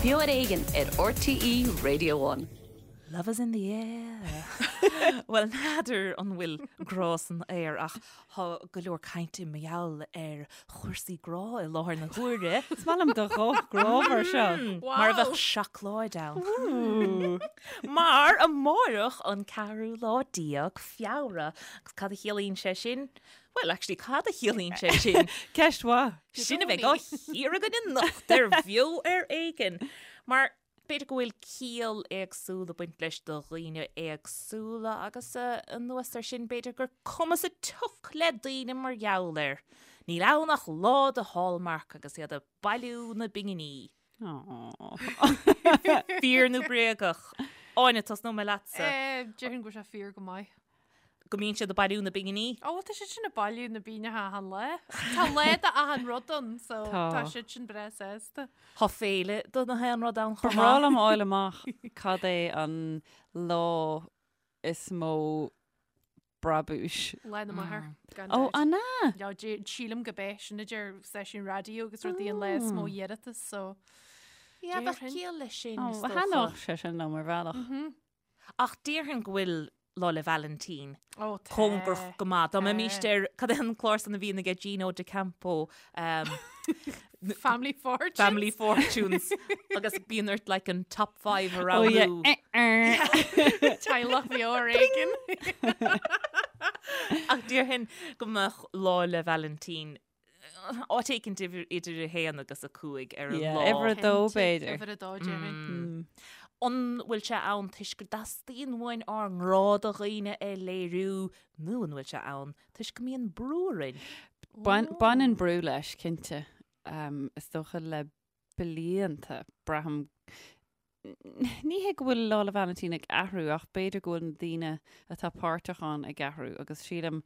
Beo ar Éigean ar RTÉ Radio One. Love is in the air. Bhuel, n'fheadar an bhfuil grá san aer ach tá go leor cainte mar gheall ar chúrsaí grá i láthair na huaire. Is maith liom do ghuth grámhar seo. Mar a bheadh seacláid ann. Mar amárach an ceathrú lá déag Feabhra. Agus cad a chiallaíonn sé sin? Bhuel, actually, cad a chiallaíonn sé sin? Ceist mhaith. Sin a bheidh á chíoradh againn anocht ar Bheo ar Éigean. Mar b'fhéidir go bhfuil ciall éagsúil ag baint leis do dhaoine éagsúla agus anuas air sin b'fhéidir gur cuma sa tsioc le daoine mar gheall air. Níl ann ach lá do Hallmark agus iad ag bailiú na bpinginí. Fíor nó bréagach? Áine, tosnóidh mé leatsa. Déarfainn go bhfuil sé fíor go maith. Go mbíonn siad ag bailiú na bpinginí? Ó, tá siad sin ag bailiú na bpingineacha achan lá. Tá lá d'achan rud ann, so tá siad sin breá sásta. Tá féile do na haon rud ann chomh maith. Ba bhreá liom a fháil amach cad é an lá is mó brabúis. Lá na Máthar, gan Ó, dabht. an ea? No, sílim gurb é sin a deir stáisiúin raidió agus rudaí an lá is mó iarratas, so Yeah, bheadh déarfainn. ciall leis sin, Ó, is dócha. thaitneodh sé sin liom ar bhealach. Ach déarfainn go bhfuil Lá 'le Vailintín Ó, tá. cóngarach go maith. Dá mbeimis Tá. ar, cad é an clár san a bhíonn aige Gino D'Acampo, um, Family Fortunes. Family Fortunes agus bíonn ort like an top 5 a Oh yeah. roghnú. Eh, eh. Teaghlach Bheo ar Éigean. Ach déarfainn go mbeadh Lá 'le Vailintín áit éicint idir 1 agus 5 ar an Yeah, lá. uimhir a dó b'fhéidir. Uimhir a dó déarfainn. An bhfuil sé ann toisc go dteastaíonn uainn ár ngrá do dhaoine a léiriú nó an bhfuil sé ann toisc go mbíonn brú orainn? Baineann brú leis, cinnte. Is dócha le blianta, braithim, ní hé go bhfuil Lá 'le Vailintín ag athrú ach b'fhéidir go bhfuil na daoine atá páirteach ann ag athrú agus sílim,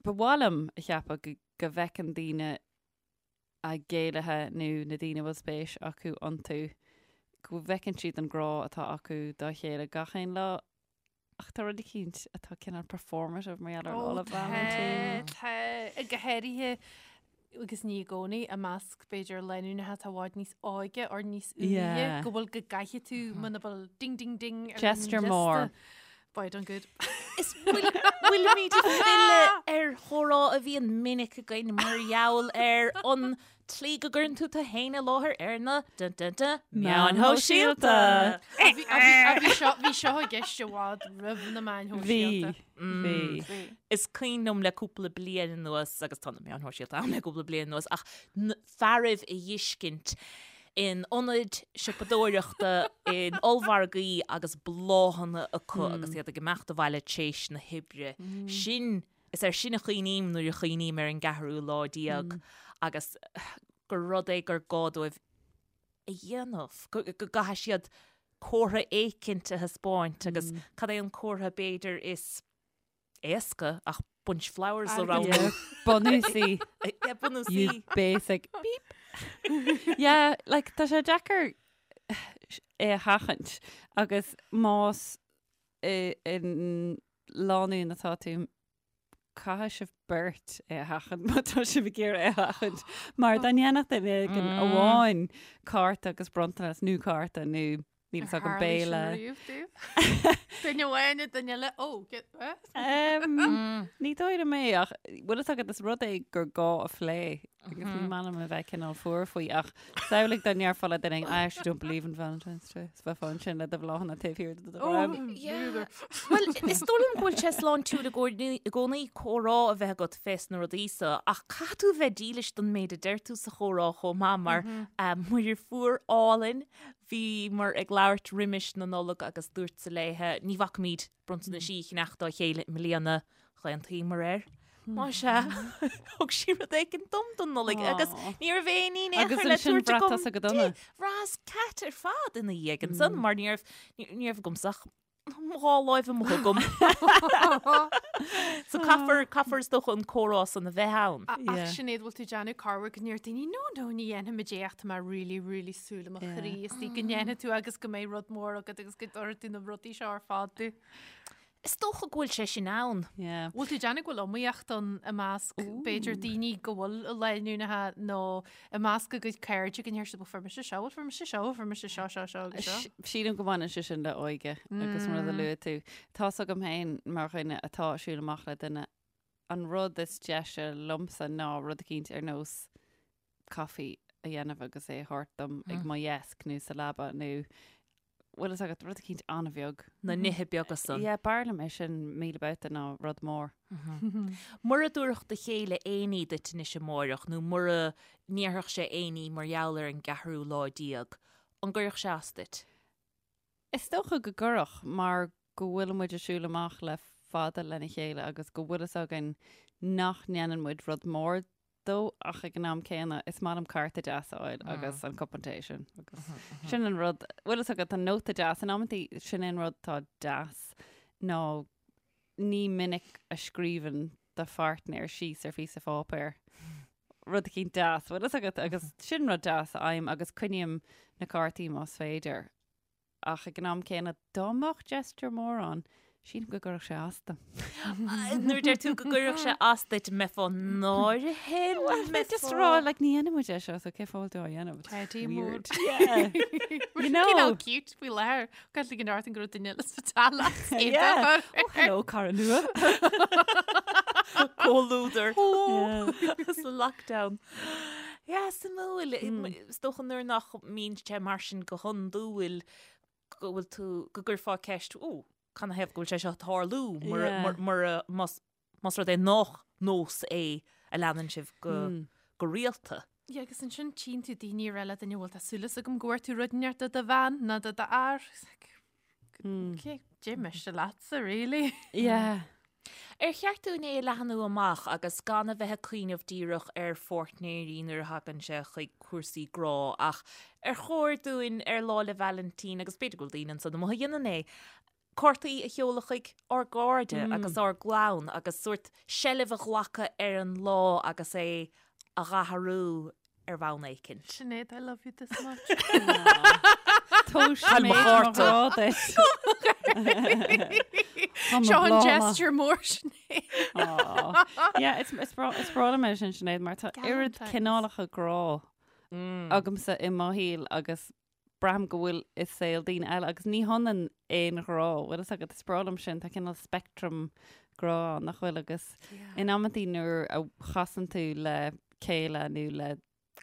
ba mhaith liom a cheapadh go bhfeiceann daoine a gcéilithe nó na daoine a bhfuil spéis acu iontu, go bhfeiceann siad an grá atá acu dá chéile gach aon lá. Ach tá rud eicínt atá cineál performative mar gheall ar Lá 'le Vailintín. Tá, tá, go háirithe agus ní i gcónaí i measc b'fhéidir lánúineacha atá i bhfad níos óige or níos úire go bhfuil go gcaithfidh tú muna bhfuil ding ding ding ar an Gesture liosta. mór. Boy, done good. Is bhfuilimid ag filleadh ar chomhrá a bhíonn minic againn mar gheall ar an tslí go gcuireann tú tú féin i láthair ar na dun dun dun meáin shóisialta. Bhí seo bhí seo i gceist i bhfad roimh na meáin shóisialta. Bhí, bhí. Is cuimhin liom le cúpla bliain anuas, agus tá na meáin shóisialta ann le cúpla bliain anuas, ach na fearaibh a dh'fheiscint in ionaid siopadóireachta, in ollmhargaí agus bláthanna acu agus iad ag imeacht abhaile tréis na hoibre. Sin Is air sin a chuimhním nuair a chuimhním ar an gceathrú lá déag agus gur rud é gur gá dóibh a dhéanamh, go gcaithfidh siad comhartha éicint a thaispeáint agus cad é an comhartha b'fhéidir is éasca ach bunch flowers a roghnú. Bunúsaí. Yeah, bunúsaí. You basic beep. Yeah, like tá sé deacair é a sheachaint agus más i lánúin atá tú, caithfidh sibh beirt é a sheachaint má tá sibh ag iarraidh é a sheachaint. Mar dá ndéanfadh duine éigin amháin cárta agus bronntanas nó cárta nó níl fhios agam béile. Duine amháin duine eile ó Ní dóigh liom é ach bhfuil fhios agat is rud é gur gá a phlé agus ní maith liom a bheith cineál fuar faoi ach samhlaigh dá ndéarfá le duine I actually don't believe in Valentine's Day. Is bheifeá ansin le do bhláthanna taobh thiar de do dhroim. Bhuel, is dóigh liom go bhfuil sé sláintiúil i gcónaí comhrá a bheith agat fés na rudaí so ach caithfidh tú a bheith dílis don méid a deir tú sa chomhrá chomh maith mar mo dheirfiúr álainn bhíomar ag labhairt roimis na Nollag agus dúrtsa léithe ní bhacfaimid bronntanaisí a cheannach dá chéile i mbliana, d'aontaíomar air. Más ea, thug sí rud éigin dom don Nollaig agus ní raibh aon ní in aon Agus chor le ansin tabhairt bhraith agam tusa go dona. di. Bhraitheas cat ar fad ina dhiaidh ansan mar ní raibh, ní raibh agamsa ach mo dhá láimh amuigh agam. So caithfear, caithfear is dócha an comhrá san a bheith ann. Ach Yeah. Sinéad, bhfuil tú ag déanamh corruair go ndeir daoine, no, no, ní dhéanfaimid é ach tá mé really, really súil i mo chroí istigh go ndéanfaidh tú agus go mbeidh rud mór agat agus go dtabharfaidh tú na rudaí seo ar fad domh. Is dócha go bhfuil sé sin ann. Yeah. Bhfuil tú ag déanamh go bhfuil iomaíocht ann i measc b'fhéidir daoine go bhfuil lánúineacha nó i measc a gcuid cairde go ndeir siad bhuel fuair mise seo, bhuel fuair mise seo, fuair mise seo, seo, seo agus seo. Sílim go mbaineann sé sin le óige agus an rud a luaigh tú. Tá's agam féin mar dhuine atá ag siúl amach le duine, an rud is deise liomsa ná rud eicínt ar nós caife a dhéanamh agus é a thabhairt dom ag mo dheasc nó sa leaba nó bhfuil fhios agat rud eicínt an-bheag. Na nithe beaga san. Yeah, b'fhearr liom é sin 1000 babhta ná rud mór. Mura dtabharfadh do chéile aon ní duit anois amáireach nó mura ndéarfadh sé aon ní mar gheall ar an gceathrú lá déag, an gcuirfeadh sé as duit? Is dócha go gcuirfeadh mar go bhfuil muid ag siúl amach le fada lena chéile agus go bhfuil fhios againn nach ndéanann muid rud mór dó ach ag an am céanna is maith liom cárta deas a fháil agus an cupán tae sin agus sin an rud bhfuil fhios agat an nóta deas in amantaí sin an rud atá deas ná ní minic a scríobhann do pháirtnéir síos ar phíosa pháipéir rud eicínt deas bhfuil fhios agat agus sin rud deas a fhaighim agus coinním na cártaí más féidir. Ach ag an am céanna, dá mbeadh gesture mór ann, sílim go gcuirfeadh sé as dom. Nuair a deir tú go gcuirfeadh sé as duit, mbeifeá náirithe? Well, mé just rá, like, ní dhéanann muid é seo, so cén fáth a bhfuil tú á dhéanamh? It's Teddy mór. weird. Yeah. You know. Cineál cute faoi láthair. Caithfidh go ndúirt go raibh duine eile sa teallach. Yeah. Oh, hello, cara nua. Comhluadar. Yeah. Sa lockdown. Yeah, suimiúil. Is dócha nuair nach mbíonn sé mar sin go hiondúil go bhfuil tú, go gcuirfeá ceist, ó, canathaobh go bhfuil sé seo ag tarlú mura, Yeah. mura, mura, más, más rud é nach nós é a leanann sibh go, go rialta. Yeah, agus ansin tchíonn tú daoine ag rá le duine bhfuil tá súil agam go bhfuair tú rud inteacht do do bhean nó do do fhear. It's like, Okay, dé miste leatsa, really. Yeah. Ar cheart dúinn é a leathnú amach agus gan a bheith ag cuimhneamh díreach ar pháirtnéirí nuair a thagann sé chuig cúrsaí grá ach ar chóir dúinn ar Lá 'le Vailintín, agus b'fhéidir go bhfuil daoine ansan amuigh a dhéanann é, cártaí a sheoladh chuig ár gcairde agus ár gclann agus sórt seilbh a ghlacadh ar an lá agus é a dhathrú ar bhonn éicint. Sinéad, I love you this much. Tóis mé mo grá duit. Seo an gesture mór Sinéad. Yeah, it's it's breá it's breá liom é sin Sinéad mar tá oiread Galentine's. cineálacha grá agamsa i mo shaol agus braithim go bhfuil i saol daoine eile agus ní hionann aon ghrá, bhfuil fhios agat, is breá liom sin, tá cineál spectrum grá ann, nach bhfuil, agus in amantaí nuair a chasann tú le céile nó le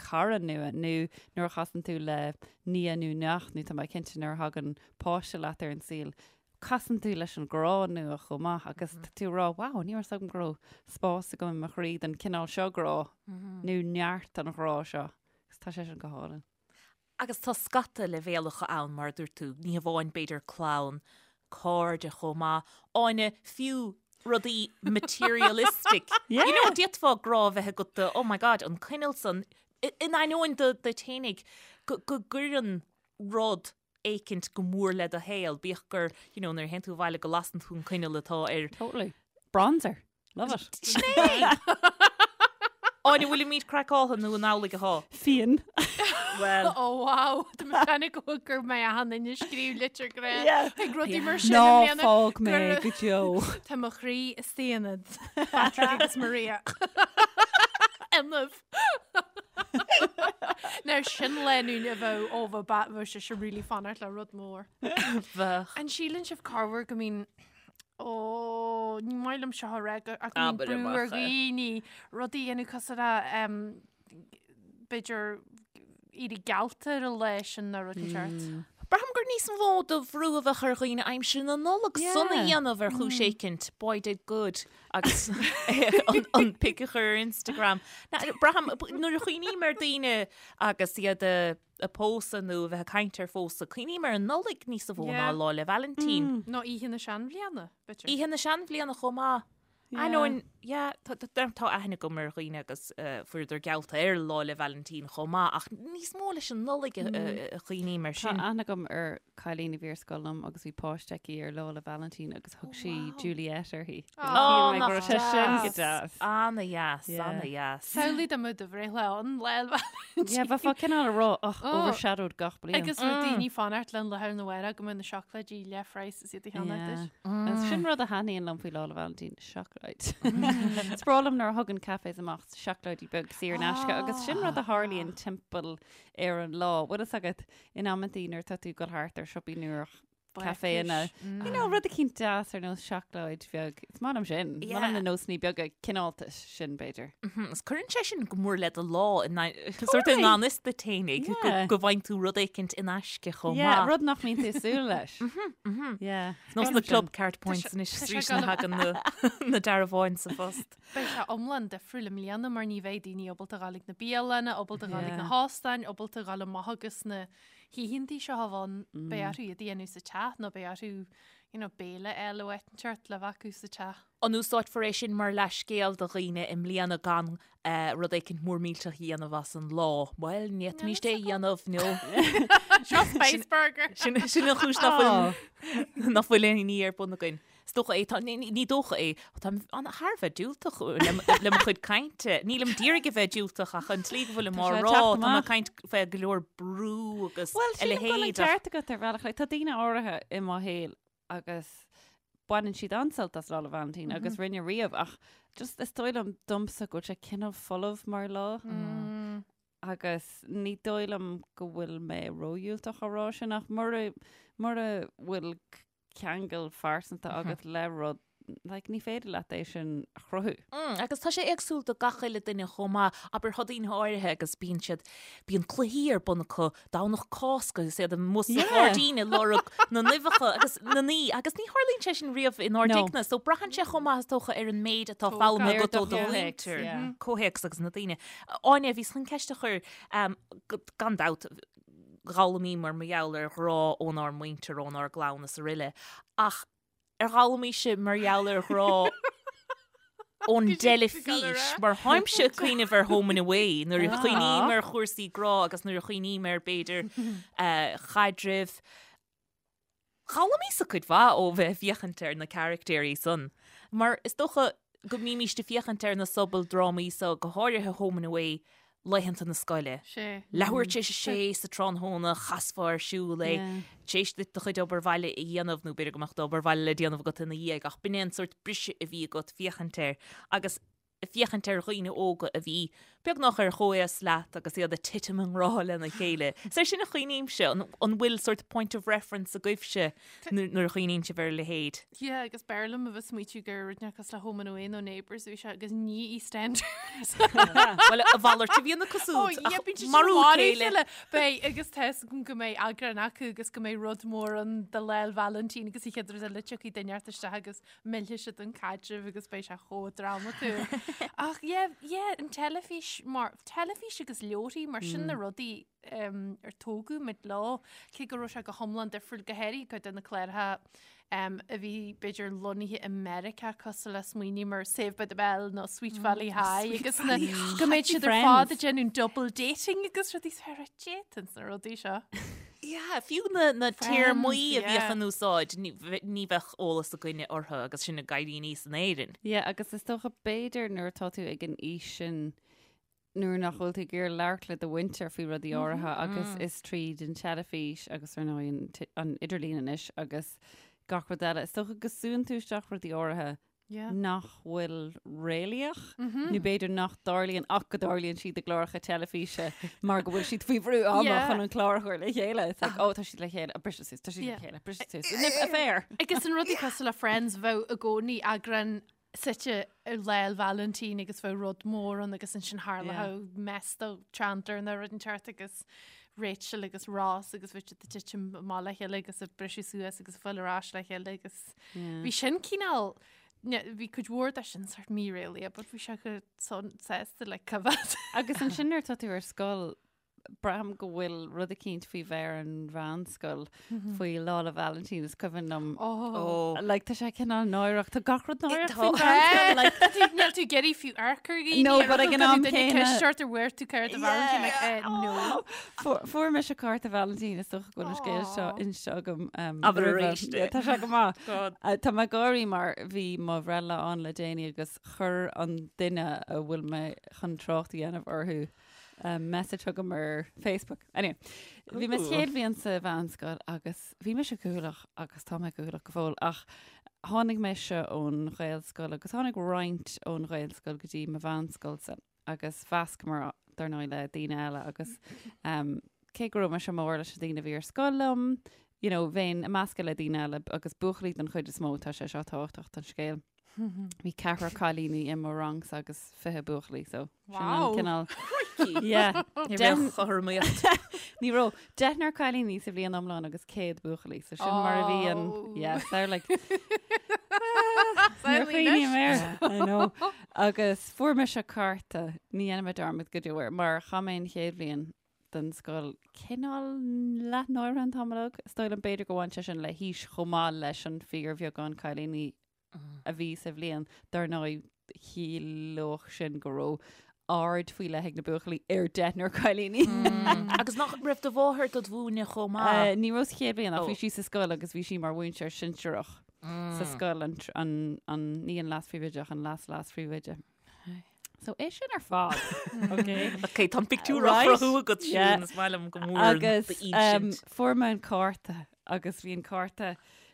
cara nua nó nuair a chasann tú le nia nó neacht nó tá mé cinnte nuair a thagann páiste leat ar an saol, casann tú leis an grá nua chomh maith agus tá tú ag rá, wow, ní raibh fhios agam go raibh spás agam i mo chroí don cineál seo grá nó neart an ghrá seo agus tá sé sin go hálainn. Agus tá scata leibhéalacha ann, mar a dúirt tú, ní hamháin b'fhéidir clann, cairde chomh maith, Áine, fiú rudaí materialistic. Yeah. You know, d'fhéadfá grá a bheith agat do, oh my God, an coinneal san, in ainneoin do duit fhéinig, go go gcuireann rud éicint go mór le do shaol, bíodh gur, you know, nuair a théann tú abhaile go lasann tú an coinneal atá ar Totally. Bronzer. Love it. Sin é! Áine, bhfuilimid craiceáltha nó an amhlaidh atá? Fíon. Well. Oh wow, Tá mé ag déanamh go mbeidh achan duine ag scríobh litir grá Yeah. ag rudaí mar sin Ná i mbliana fág mé gur- go deo. Tá mo chroí i staonad. Patrick agus Maria. Inniu. Now sin lánúin a bheadh ó bheadh ba- bheadh sé sin really fanacht le rud mór. Bheadh. An síleann sibh corruair go mbíonn Ó, ní maith liom seo a rá ach go mbíonn Abair brú ar amach é. dhaoine rudaí a dhéanamh cosúil le em, b'fhéidir éirí geallta ar an lá sin nó rud inteacht. Braithim gur níos mó de bhrú a bheadh ar dhaoine aimsir na Nollag Yeah. san a dhéanamh ar chúis éicint, boy did good, agus an, an pic a chur ar Instagram. Na, braithim, nuair a chuimhním ar daoine agus iad a ag pósadh nó a bheith ag caint ar phósadh, cuimhním ar an Nollaig níos mó ná Yeah. Lá 'le Vailintín. Nó oíche na seanbhliana, b'fhéidir. Oíche na seanbhliana chomh maith. Yeah. Ainneoin Yeah, tá tá aithne agam ar dhaoine agus fuaireadar geallta ar Lá 'le Vailintín chomh maith ach níos mó leis an Nollaig a chuimhním air Tá sin. aithne agam ar cailín a bhí ar scoil liom agus bhí páiste aici ar Lá 'le Vailintín agus thug sí Juliet uirthi. Ó, Shíl mé go nach raibh sé sin go deas. deas. Ana-dheas, Yeah. ana-dheas. Samhlaigh dá mbeadh do bhreithlá ann Lá 'le Vailintín. Yeah, bheifeá cineál ag rá, ach Ó. overshadowed gach bliain. Agus raibh daoine ag fanacht le an lá arna mhárach go mbeadh na seacláidí leathphraghas is iad a cheannach duit. Yeah. Sin rud a thaitníonn liom faoi Lá 'le Vailintín, seacláid. Is breá liom nuair a thugann cafés amach seacláidí beag saor in aisce agus sin rud a tharlaíonn timpeall ar an lá. Bhfuil fhios agat in amantaí nuair atá tú ag dul thart ar siopaí nó ar caiféanna, you know, rud eicínt deas ar nós seacláid bheag. Is maith liom sin. Is maith liom na nósanna beaga cineáltais sin b'fhéidir. Is cuireann sé sin go mór le do lá in sort i ngan fhios duit fhéinig go bhfaigheann tú rud éicint in aisce chomh Yeah, maith. rud nach mbíonn tú ag súil leis. Yeah. Nós na Clubcard points anois tá sé arís na thagann na dearbháin sa phost. Beidh sé iomlán difriúil i mbliana mar ní bheidh daoine ábalta dhul ag na bialanna, ábalta dhul ag na hóstáin, ábalta dhul amach agus na hoícheantaí seo a bheith ann, beidh orthu iad a dhéanamh sa teach nó beidh orthu you know, béile a fháil ó áit inteacht le bheith acu sa teach. An úsáidfear é sin mar leathscéal do dhaoine i mbliana gan rud éicint mór millteach a dhéanamh as an lá? Bhuel, ní fhéadfaimíst é a dhéanamh nó Seo Spice Burger! sin an chúis nach bhfuil nach bhfuil aon ní ar bun againn. Is dócha é, tá, ní, ní dócha é, táim an thar a bheith diúltach le, le mo chuid cainte. Nílim d'iarraidh a bheith diúltach ach an tslí go bhfuilim á Tá sé ag rá, teacht tá mé ag amach. caint fé go leor brú agus Bhuel, a sílim go bhfuil an leithéid ach ceart agat ar bhealach. Like, tá daoine áirithe i mo shaol agus baineann siad an-sult as Lá 'le Vailintín agus rinne riamh ach just is dóigh liom domsa go bhfuil sé cineál folamh mar lá agus ní dóigh liom go bhfuil mé ródhiúltach á rá sin ach mura mura bhfuil ceangal phearsanta agat le rud, like, ní féidir leat é sin a chruthú. Mm, agus tá sé éagsúil do gach uile duine chomh maith. Abair, tá daoine áirithe agus bíonn siad, bíonn cluichí ar bun acu Domhnach Cásca agus iad amuigh sa ghairdín ag lorg na n-uibheacha agus na naí agus ní tharlaíonn sé sin riamh inár dtighne. So braitheann sé chomh maith is dócha ar an méid atá foghlamtha agat ó do mhuintir, comhthéacs agus na daoine. Áine, bhíos chun ceist a chur, gan dabht, D'fhoghlaimíomar mar gheall ar ghrá ónár muintir, ónár gclann is aroile. Ach ar fhoghlaimís-se mar gheall ar ghrá ón dteilifís? Mar táimse ag cuimhneamh ar Home and Away nuair a chuimhním ar chúrsaí grá agus nuair a chuimhním ar b'fhéidir chaidrimh. D'fhoghlaimíos-sa cuid mhaith ó bheith ag féachaint ar na caractéirí san, mar is dócha go mbímíst ag féachaint ar na sobaldrámaí so, go háirithe Home and Away, laethanta na scoile. Sé. Leathuair tar éis a sé sa tráthnóna, chasfá ar siúl é, tar éis duit do chuid obair bhaile a dhéanamh, nó b'fhéidir go mbeadh d'obair bhaile le déanamh agat ina dhiaidh, ach b'in é an sórt briseadh a bhí agat féachaint air. Agus féachaint ar dhaoine óga a bhí beagnach ar chomhaos leat agus iad ag titim i ngrá lena chéile. Is air sin a chuimhnímse, an bhfuil sort point of reference agaibhse nuair a chuimhníonn sibh ar a leithéid? Yeah, agus b'fhearr liom a bheith smaoitiú gur rud nach cosúil le Home and Away nó Neighbours a bhí sé agus ní EastEnders. Bhuel, a mhalairt a bhíonn acu siúd, ach marú a chéile. Beidh, agus tá fhios agam go mbeidh eagrán acu agus go mbeidh rud mór ann do Lá 'le Vailintín agus an chéad rud eile tiocfaidh duine inteacht isteach agus millfidh siad an caidreamh agus beidh sé chomh drámatúil. Ach yeah, yeah, an teilifís mar, teilifís agus leabharthaí mar sin na rudaí um, ar tógadh muid leo, cé go raibh sé go hiomlán difriúil go háirithe cuid de na cláracha um, a bhí b'fhéidir lonnaithe i Meiriceá cosúil le smaoiním ar Saved by the Bell nó Sweet Valley High agus na, go mbeidh siad ar fad ag déanamh double dating agus rudaí is fearr déanann na rudaí seo. Yeah, fiú na, na téarmaí a bhíodh in úsáid, ní, ní bheadh eolas againne orthu agus sinn ag éirí aníos in Éirinn. Yeah, agus is dócha b'fhéidir nuair atá tú ag an aois sin nuair nach bhfuil tú ag iarraidh labhairt le do mhuintir faoi rudaí áirithe agus is tríd an teilifís agus ar ndóigh an, an idirlíon anois agus gach rud eile, is dócha go súnn tú isteach rudaí áirithe nach bhfuil réalaíoch, nó b'fhéidir nach dtarlaíonn ach go dtarlaíonn siad i gcláracha teilifíse mar go bhfuil siad faoi bhrú ama chun an clár a chur le chéile. It's like, oh, tá siad le chéile, briseadh suas, tá siad le chéile, briseadh suas. Affair. Agus an rudaí cosúil le Friends bheadh i gcónaí eagrán suite ar Lá 'le Vailintín agus bheadh rud mór ann agus ansin tharlódh mess do Chandler nó rud inteacht agus Rachel agus Ross agus bheadh siad ag titim amach le chéile agus ag briseadh suas agus ag fáil ar ais le chéile agus bhí sin cineál bhí cuid mhór de sin sort míréalaíoch but bhí sé go sásta le coimhéad. Agus ansin nuair atá tú ar scoil. braithim go bhfuil rud eicínt faoi bheith ar an mheánscoil faoi Lá 'le Vailintín is cuimhin liom. Oh. Like, tá sé cineál náireach, tá gach rud náireach Tá. faoin mheánscoil, like, Níl tú ag iarraidh fiú amharc ar dhaoine. No, but ag an am céanna- Ceist ort ar bhfuair tú cárta Vailintín, like, eh, no. Fuair fuair mise cárta Vailintín is dócha go bhfuil an scéal seo Aw. inste agam. Um, Abair roimhe. arís é. Yeah, Tá sé go maith. God. Uh, Tá mé ag gáirí mar bhí mo bhreithlá ann le déanaí agus chuir an duine a bhfuil mé chun trácht a dhéanamh orthu um, message chugam ar Facebook. Anyway, bhí mé sa chéad bhliain sa mheánscoil agus bhí mise cúthaileach agus tá mé cúthaileach go fóill ach tháinig mise ón Ghaelscoil agus tháinig roinnt ón Ghaelscoil go dtí mo mheánscoilsa agus mheascamar dar ndóigh le daoine eile agus um, cé go raibh mise mór leis na daoine a bhí ar scoil liom, you know, bheinn ag meascadh le daoine eile agus buachaillí den chuid is mó tá sé seo tábhachtach don scéal. Bhí ceathrar cailíní i mo rangsa agus 20 buachaillí so sin an Wow. cineál. Yeah. Ní Deich- raibh chothromaíocht. Ní raibh deichniúr cailíní sa bhliain iomlán agus 100 buachaillí so sin mar a bhí an Oh. yeah, so like Níor chuimhním air. I know. Agus fuair mise cárta ní dhéanfaidh mé dearmad go deo air mar chaith mé an chéad bhliain den scoil cineál leath-náirithe an t-am uilig. Is dóigh liom b'fhéidir go bhain sé sin le haois chomh maith leis an fíorbheagán cailíní a bhí sa bhliain. Dar ndóigh, chiallódh sin go raibh aird faoi leith ag na buachaillí ar deichniúr cailíní. Agus nach raibh do mháthair dod mhúineadh chomh maith? Ní raibh sa chéad bhliain ach Ó. bhí sí sa scoil agus bhí sí mar mhúinteoir sinsearach sa scoil, an, an, an, ní an leas-phríomhoide ach an leas-leas-phríomhoide. So é sin ar fad. Okay. Ok, tá an pictiúr á Right? chruthú agat Yeah. Siún, is maith liom go mór an Agus d'insint. fuair mé an cárta agus bhí an cárta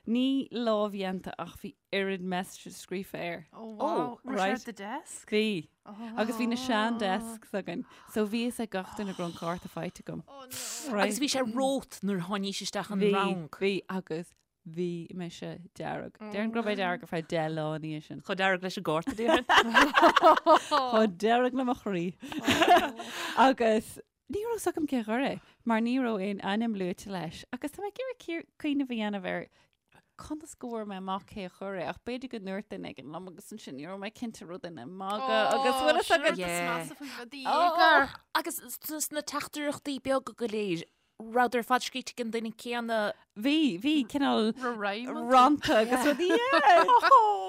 ní lámhdhéanta ach bhí oiread messages scríofa air. Oh, wow. Oh, Raibh sé right. at the desk? Bhí. Agus bhí na sean desks againn. So bhí fhios ag gach duine go raibh an cárta faighte agam. Oh no. Right. Agus bhí sé romhat nuair a tháinís isteach an Bhí, rang. bhí agus Bhí mise dearg. Déarfainn go raibh mé dearg ar feadh 10 lá ina dhiaidh sin. Chomh dearg leis an gcárta, déarfainn. Chomh dearg le mo chroí. Agus ní raibh fhios agam cé a chuir é, mar ní raibh aon ainm luaite leis. Agus tá mé ag iarraidh cuimhneamh a dhéanamh ar conas go bhfuair mé amach cé a chuir é, ach b'fhéidir go ndúirt duine éigin liom agus ansin ní raibh mé cinnte raibh duine ag magadh agus bhfuil fhios agat. Yeah. Agus sna teachtaireachtaí beaga go léir, Rabhadar ar fad scríte ag an duine céanna. Bhí, bhí cineál Rhyme. rannta agus rudaí. Yeah.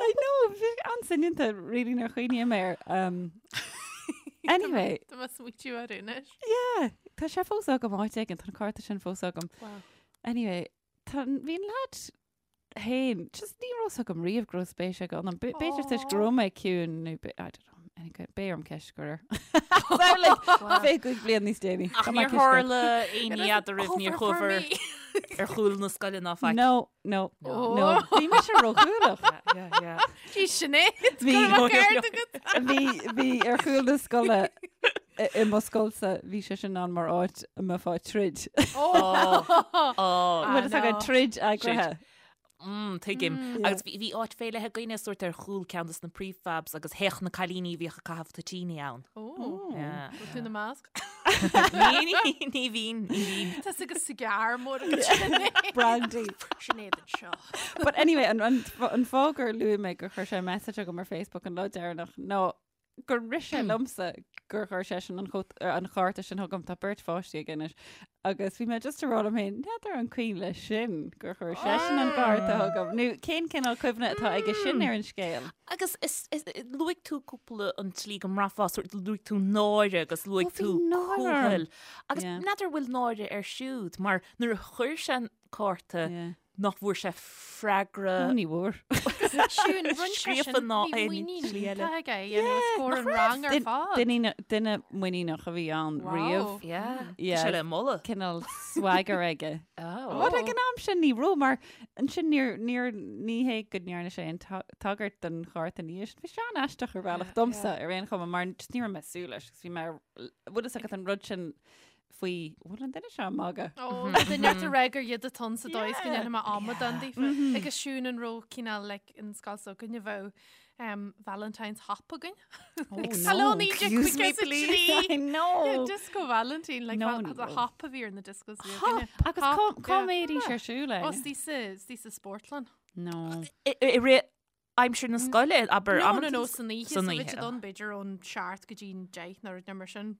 I know, bhí an-soineanta really nuair a chuimhním air. Um, anyway. Tá mé ag smaoitiú air anois. Yeah, tá sé fós agam áit éigin, tá an cárta sin fós agam. Wow. Anyway, tá, bhí an lad féin, just ní raibh fhios agam riamh go raibh spéis aige ionam. B'fhéidir toisc go raibh mé ciúin nó I don't know. Anyway, beidh orm ceist a chur air. So, like, 25 bliain níos déanaí. Ach Tá mé níor ceist a chur. tharla aon ní eadraibh, níor chuabhair ar chúl na scoile ná faic. No, no, no. Bhí mise róchúthaileach. Yeah, yeah. Bhí Sinéad, Bhí- go raibh ceart agat. Bhí bhí ar chúl na scoile i i mo scoilsa, bhí sé sin ann mar áit a mbeifeá ag troid. Oh, Bhfuil fhios agat troid eagraithe. Mm, tuigim. Agus bhí bhí áit fé leith againne sórt ar chúl ceann de na prefabs agus théadh na cailíní a bhíodh ag caitheamh toitíní ann. Ó, Yeah. bhfuil tú ina measc? Ní, ní, ní bhínn, ní bhínn. Tá sí agus cigar mór agat Sinéad. Brandy. Sinéad anseo. But anyway, an, an, an fáth gur luaigh mé gur chuir sé message chugam ar Facebook an lá deireanach ná gur rith sé liomsa gur chuir seisean an chót- er, an chárta sin chugam tá beirt pháistí aige anois agus bhí mé just ag rá liom féin n'fheadar an cuimhin leis sin gur chuir seisean an cárta chugam. Nó cén cineál cuimhne atá aige sin ar an scéal? Agus is, is, luaigh tú cúpla an tslí go mbraithfeá, sórt luaigh tú náire agus luaigh Ó, bhí tú náire orm. cúthail. Agus Yeah. n'fheadar bhfuil náire air siúd, mar nuair a chuir sé an cárta Yeah. nach bhfuair sé freagra. Ó, ní bhfuair. Siún, rinne sé Scríofa sin, ná bhí aon muinín slí eile. iontach aige, you know, scór an rang ar fad. Duine duine muiníneach a bhí ann Wow. riamh. Yeah. Yeah. Tá sé le moladh. Cineál swagger aige. Oh. But ag an am sin ní raibh mar ansin níor níor ní hé go ndearna sé aon ta- tagairt don chárta ina dhiaidh sin. Bhí sé an-aisteach ar bhealach domsa ar aon chuma mar just ní raibh mé ag súil leis agus bhí mé bhfuil fhios agat an rud sin faoi bhfuil an duine seo ag magadh. Ó, duine ort a rá gur iad atá ann sa dóigh is go ndéanfaidh mé amadán daofa. Agus Siún an raibh cineál like an scoil s'againne bheadh um, Valentine's hop againn. Oh, Hello, no. Excuse me, please. I know. Yeah, disco Valentine, like No, val- ní the raibh. hop a bhí ar na discos bhí Hop! againne. Agus Hop, cá cá yeah. mbeidís ar siúl Ó, é? istigh sa istigh sa spórtlann. No. I i rith aimsir na scoile, abair No, no, amanta no, san oíche, san so bhí oíche. siad ann b'fhéidir ón seacht go dtí an deich nó rud mar sin.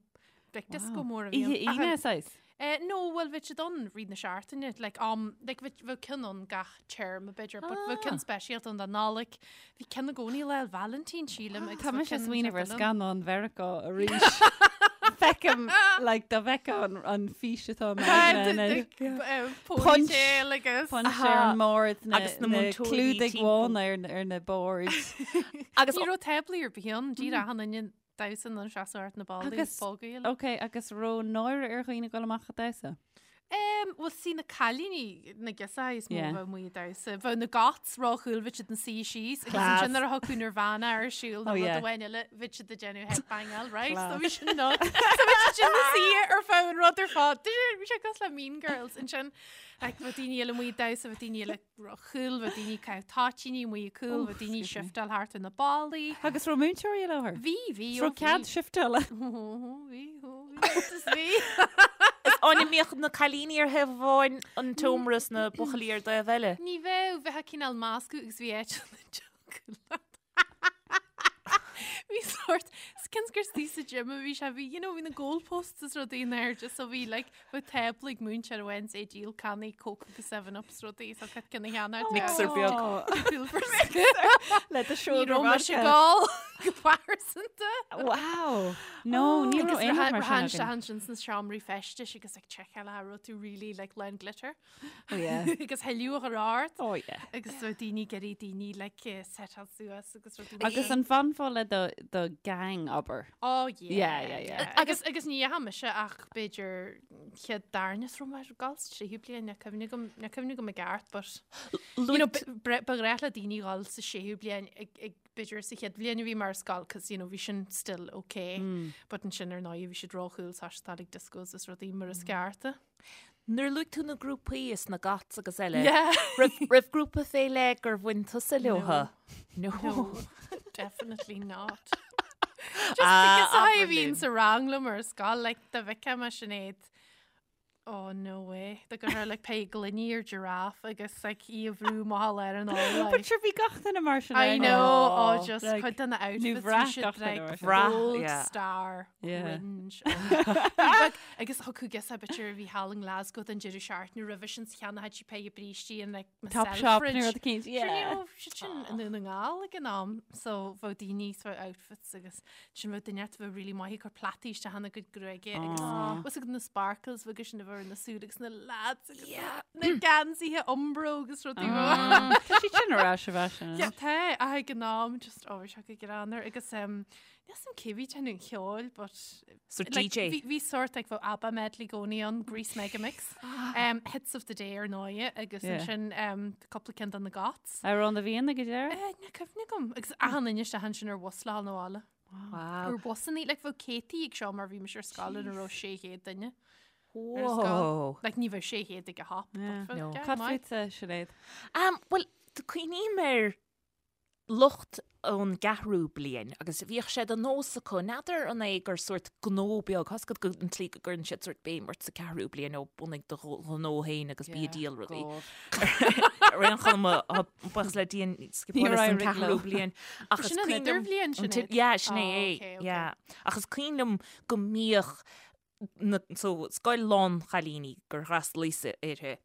Like disco mór a bhí Oíche ann. Aoine, saghas? Eh, no, bhuel bhí siad ann rith na seachtaine, like am, like bhí bheadh ceann ann gach téarma b'fhéidir, but bheadh ceann speisialta ann don Nollaig. Bhí ceann i gcónaí Lá 'le Vailintín, sílim, agus Tá bheadh mise ag ceann smaoineamh ar seachtain ann. scannán Mheiriceá arís. Feicim, like, dá bhfeicfeá an, an fís atá i m'aigne anois. Punch. Ponytail agus. Punch ar an mbord, na, Agus na na múinteoirí clúdaigh timpeall. bhána ar, ar na boird. Agus Ní raibh táblaí ar bith ann, díreach achan duine damhsa ina seasamh thart na ballaí Agus- bogaíl. Ok, agus raibh náire ar dhaoine dul amach ag damhsa? Um, well, sí na cailíní na girseachaí is mó Yeah. a bheadh amuigh ag damhsa. Bheadh na goths róchool bhí siad ina suí síos agus Class. ansin nuair a thiocfadh Nirvana ar siúl nó Oh, rud yeah. amháin eile bhí siad ag déanamh headbangáil, right? So Class. bhí sin nuts. So bhí siad ina suí ar feadh an rud ar fad. Bhí sé cosúil le Mean Girls ansin. Like, bheadh daoine eile amuigh ag damhsa, bheadh daoine eile róchool, bheadh daoine ag caitheamh toitíní amuigh ag cúl, bheadh daoine ag shiftáil thart ar na ballaí. Agus raibh múinteoirí i láthair? Bhí, bhí, Is raibh cead shiftála? Bhí, bhí, is bhí. Is an mbíodh na cailíní ar thaobh amháin an tseomra is na buachaillí ar dtaobh eile. Ní bheadh, bheadh cineál meascadh agus bhí áit na dtiocfadh leat. Bhí sort, cionn is gur istigh sa gym a bhí sé, bhí, you know, bhí na goalposts is rudaí in airde, so bhí, like, bheadh tábla ag múinteoir amháin is é ag díol cannaí Coke agus 7up is rudaí, so cad cionn a cheannacht. Mixer beag. Le do Ní shoulder raibh mise vodka. ag gabháil go pearsanta. Wow. No, ní raibh aon rud mar sin againn. Agus ansin sna seomraí feistis agus ag seiceáil an raibh tú really like lán glitter. Oh yeah. Agus thuilleadh a chur ort. Oh yeah. Agus so daoine ag iarraidh daoine like eh, setáil suas agus rudaí. Agus an bhfanfá le do, do gang abair? Oh yeah. Yeah, yeah, yeah. Agus agus ní dheachaigh mise ach b'fhéidir chéad darna is raibh mé ag gabháil sa tríú bliain, níl cuimhne agam níl cuimhne agam i gceart but you know, ba ba ghnách le daoine dhul sa séú bliain ag ag b'fhéidir sa chéad bhliain a bhí mé ar scoil cos you know bhí sin still okay but ansin ar ndóigh bhí siad róchool ag ag discos is rudaí mar is ceart. Nuair a luaigh tú na grúpaí is na goths agus eile, Yeah. raibh, raibh grúpa fé leith gur bhain tusa leotha? No. No, definitely not. Just Ah, because I abair bhíonn linn. sa rang liom ar scoil, like, dá bhfeicfeá mé Sinéad, oh no way, dá gcuirfeá like pé gloiní ar giraffe agus like í a bhrú amach ar an ól, But like. sure bhí gach duine mar sin. I eh? know, oh, Oh, just like, cuid de na outfits bhí bhraith siad gach duine like mar sin. Bhraith, gold yeah. star Yeah. cringe. Bhí agus thiocfadh girseach b'fhéidir a bhí thall i nGlasgow don deireadh seachtaine roimhe sin 's cheannaíodh sí péire brístí in like my Top shop Selfridge. nó rud eicínt. Sure, ní Yeah. raibh siad sin i nDún na nGall ag an am, so bheadh daoine sa outfits agus sin bheadh duine a bheadh really maith ag cur plataí isteach ina gcuid gruaige agus was ag na sparkles bheadh sin a bheith ar na súile agus na lads agus na geansaithe Umbro agus rudaí mar. Tá siad sin ar ais i bhfaisean. Yeah, tá, ach ag an am just oh, bhí sé go greannmhar agus um, Níl 's a'm cé bhí ag déanamh an cheoil, but So like, DJ. Bhí bhí sort like bheadh ABBA medley i gcónaí ann, Grease Megamix, um, Hits of the Day ar ndóigh, agus Yeah. ansin um, cúpla ceann de na Goths. Amhrán na bhFiann ag an deireadh? Eh, Níl cuimhne agam. Agus achan duine isteach ansin ar bhus le dhul 'na bhaile. Wow. Ar busannaí, like bheadh céadtaí ag seo mar bhí mise ar scoil ina raibh 600 duine. Ar scoil. Whoa. Like ní bheadh 600 ag a hop. but Yeah. bheadh, No. yeah, Cad maith. fútsa, Sinéad? Um, well, cuimhním ar lucht ón gceathrú bliain agus bhíodh sé de nós acu, n'fheadar an é gur sórt gnó beag, tá's agat go an tslí go gcuireann siad sórt béim ort sa ceathrú bliain ó bunaigh do ghnó féin agus bí ag díol rudaí. Ar aon chuma, buíochas le Dia scipeálas an ceathrú bliain. Ach is Sin an cuimhin liom- idirbhliain, an Sinéad? Yeah, sin é Oh, é, okay, okay. yeah. Ach is cuimhin liom go mbíodh na, so, scoil lán-chailíní gur fhreastalaíos uirthi.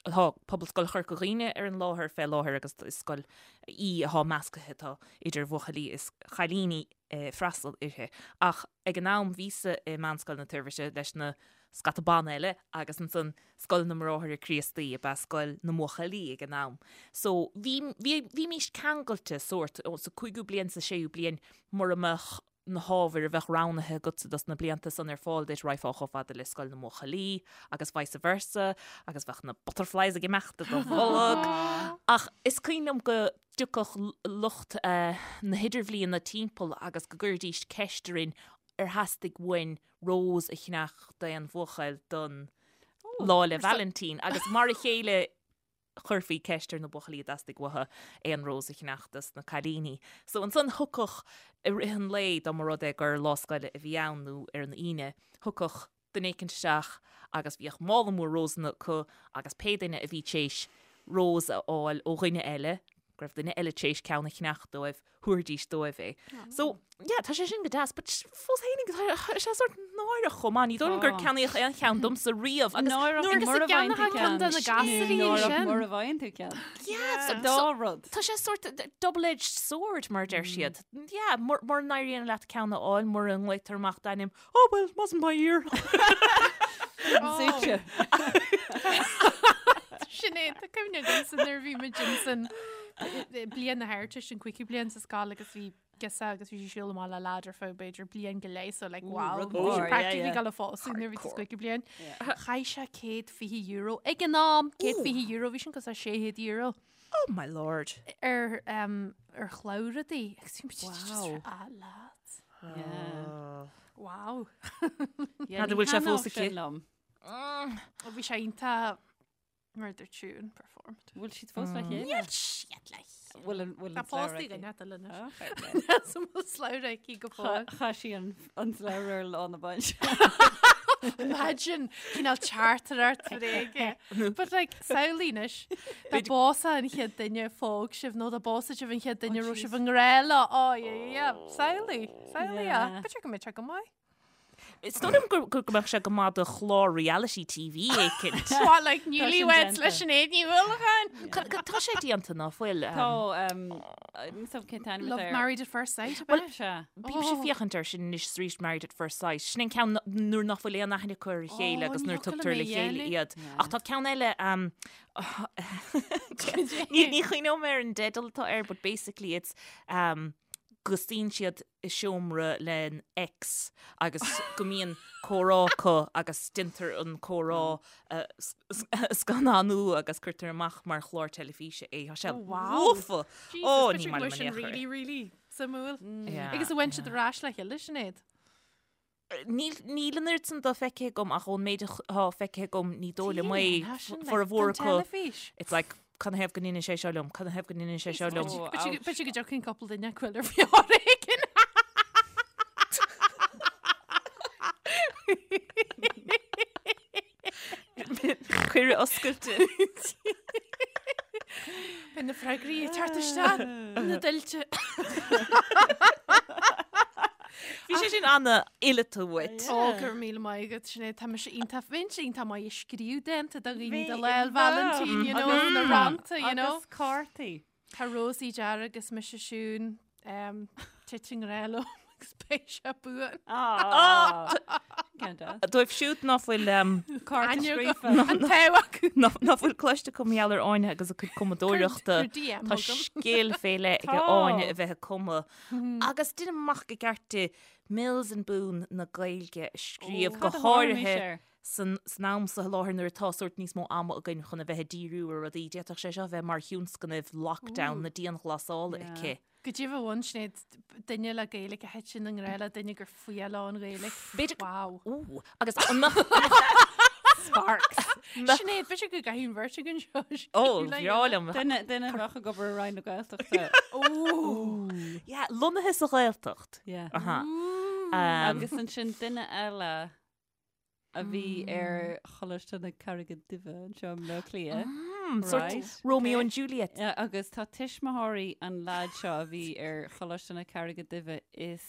Tá Pobalscoil Chorca Dhuibhne ar an láthair fé láthair agus is scoil í atá meascaithe, tá idir bhuachaillí is chailíní ag freastal uirthi. Ach ag an am bhíosa i Meánscoil na Toirbhirte leis na scata ban eile agus ansan Scoil na mBráithre Críostaí ab ea scoil na mbuachaillí ag an am. So bhí, bhí, bhímís ceangailte sórt, sa cúigiú bliain, sa séú bliain, mura mbeadh na hábhair a bheadh roghnaithe agatsa dos na blianta san ar fáil duit, raghfá chomh fada le scoil na mbuachaillí agus vice versa agus bheadh na butterflies ag imeacht i do bholg. Ach is cuimhin liom go dtiocfadh lucht na hidirbhliana timpeall agus go gcuiridís ceist orainn ar theastaigh uainn rós a cheannach d'aon bhuachaill don Lá 'le Vailintín agus mar a chéile chuirfí ceist ar na buachaillí an dteastaigh uathu aon rós a cheannach dos na cailíní. So ansan thiocfadh i rith an lae, dá mba rud é gur lá scoile a bhí ann nó ar an Aoine, thiocfadh duine éicint isteach agus bhíodh mála mór rósanna acu agus pé duine a bhí tar éis rós a fháil ó dhuine eile, go raibh duine eile tar éis ceann a cheannach dóibh, thabharfaidís dóibh é. So, yeah, tá sé sin go deas, but fós fhéinig, tá sé sort náireach chomh maith. Ní dóigh liom gur ceannaíodh aon cheann domsa riamh. Agus Náireach nuair- mura Agus a bhfaigheann tú gceannaitheadh ceann de na gasraí Náireach ansin. mura bhfaigheann tú ceann. Yeah, so- Dá so- rud. Tá sé sort double-edged sword, mar a deir siad. Yeah, mura n-éiríonn leat ceann a fháil, mura nglaotar amach d'ainm, oh well, it wasn't my year. Suite. Sinéad, tá cuimhne agamsa nuair a bhí muid ansan bliain na hArdteiste, an cúigiú bliain sa scoil agus bhí girseach agus bhí sí ag siúl amach le lad ar feadh b'fhéidir bliain go leith so like wow, rud bhí sí mór, yeah, practically yeah. ag dul a phósadh nuair a bhí sa cúigiú bliain. Chaith sé €120 ag an am, €120, bhí sin cosúil le €600 Oh my lord. ar um, ar shlabhra di. Agus bhí muid just Wow. ah, lads. Yeah. Wow. Yeah, Cad a ní bhfuil sé thaitneodh fós aici? sin liom. Bhí sé iontach mar dúirt Siún performed. Bhfuil siad fós le chéile? Níl siad le Bhfuil an bhfuil Tá an slabhra pósta aici? duine eile anois. Ah, fair play. Sa bhfuil slabhra aici go fóill. Chaith sí an an slabhra ar lá na bainse. Imagine cineál teachtaireacht bhréige. But like, samhlaigh anois, dá bpósfadh an chéad duine a phóg sibh nó dá bpósfadh sibh an chéad duine a raibh sibh i ngrá leo. Oh, yeah, yeah, yeah. Samhlaigh, samhlaigh é. Yeah. B'fhéidir go mbeadh sé go maith. Is dóigh liom go go mbeadh sé go maith do chlár reality TV éicint. What, like newlyweds déanta. le Sinéad Ní Uallacháin? Tá sé déanta ná fuil. Tá níl a fhios agam cén t-ainm Love atá air. Married at First Sight, Well, ab ea? Sea. Bímse ag féachaint air sin anois arís Married at First Sight. Sin an ceann nuair nach bhfuil aon aithne acu ar a chéile Oh, agus ní nuair fhocal tugtar mé le chéile dhéanamh. iad. Ach tá ceann eile um, ní ní chuimhneoidh mé ar an dteideal atá air, but basically it's um, go suíonn siad i seomra lena ex agus go mbíonn comhrá acu agus déantar an comhrá a scannánú agus cuirtear amach mar chlár teilifíse é. Tá sé lofa! Ó, ní maith liom sin in aon chor é. really, really suimiúil. Yeah, Agus an bhfuil siad ar ais le chéile, Sinéad? Níl níl an oiread san dó feicthe agam ach ón méid atá feicthe agam ní dóigh liom é formhór acu. It's like cad ina thaobh go ndeineann sé seo liom, cad ina thaobh go ndeineann sé seo liom. B'fhéidir go dtiocfaidh cúpla duine acu ar foréigean. Cuireadh oscailte. Beidh na freagraí ag teacht isteach na tuilte. Bhí sé sin an-fhileata uait. Ó, go raibh míle maith agat, Sinéad. Tá mise iontach, bheinnse iontach maith ag scríobh dánta do dhaoine do Lá 'le Vailintín, you know, na rannta, you know. Agus cártaí. Tá Rósaí dearg agus mise Siún, tit i ngrá liom agus beidh sé buan. Ceann deas. Dóibh siúd ná fuil Cárta Aithne scríofa. An t-ádh acu. ná fuil cloiste acu mar gheall ar Áine agus a cuid cumadóireachta. Cuir DM Tá chugam. scil fé leith ag Tá. Áine a bheith ag cumadh. Agus déanaim amach go gceart di Mills and Boon na Gaeilge a scríobh go Cad a tharla háirithe air? san san am seo i láthair nuair atá sórt níos mó ama againn chun a bheith ag díriú ar rudaí, d'fhéadfadh sé seo a bheith mar thionscnamh lockdown na dianghlasála Yeah. aici. Goidé a bhain Sinéad duine le Gaeilge a thiteann i ngrá le duine gur fuath leo an Ghaeilge. B'fhéidir Wow. Ooh, agus an mbeadh Sparks. Sinéad, b'fhéidir go gcaithfidh an bheirt againn seo. Ó, bhreá liom. Duine duine a bheadh ag obair i Roinn na Gaeltachta. Ó. Yeah, lonnaithe sa Ghaeltacht. Yeah. Aha. Um, Agus ansin duine eile a bhí ar Choláiste na Carraige Duibhe anseo i mBleá Cliath. sort Right. Romeo and Juliet. Yeah, agus tá tuismitheoirí an leaid seo a bhí ar Choláiste na Carraige Duibhe is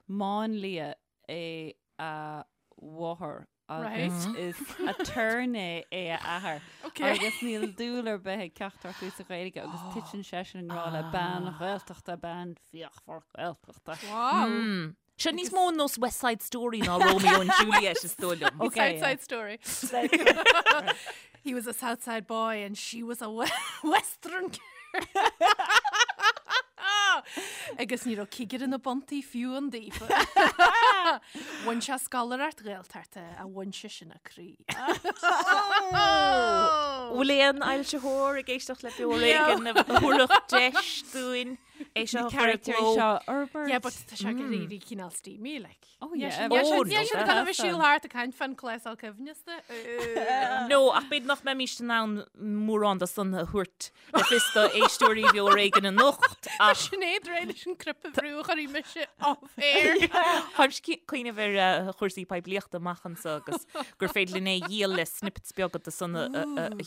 máinlia é a mháthair agus is aturnae é a athair. Okay. Agus níl dúil ar bith ag ceachtar acu sa Ghaeilge agus titeann seisean i ngrá le bean Ghaeltachta, bean fíochmhar Gaeltachta. Wow. Seo níos mó nós West Side Story ná Romeo and Juliet is dóigh liom. Okay, South Side Story. He was a Southside boy and she was a we Western girl. Agus ní raibh cigire na buntaí fiú ann daofa. Bhain sé scoláireacht Ghaeltachta a bhain sé sin a croí. Bhfuil aon fhoilsitheoir ag éisteacht le Beo Ar Éigean a thabharfadh deis dúinn? É seo a chur i Character gcló. seo a fhorbairt. Yeah, but tá sé ag éirí cineál steamy, like. Oh, yeah. Oh, Níl no, siad ag gabháil a bheith ag siúl thart ag caint fán clásal coibhneasta. No, ach b'fhéidir nach mbeimís in ann mórán de san a thabhairt le fios do éisteoirí Bheo Ar Éigean anocht, ach Sinéad réidh leis an cnaipe a bhrú a chuirfidh mise off air. Táim ag cuimhneamh ar chúrsaí poiblíochta amach anseo agus gur féidir linn é a dhíol le snippets beaga de san a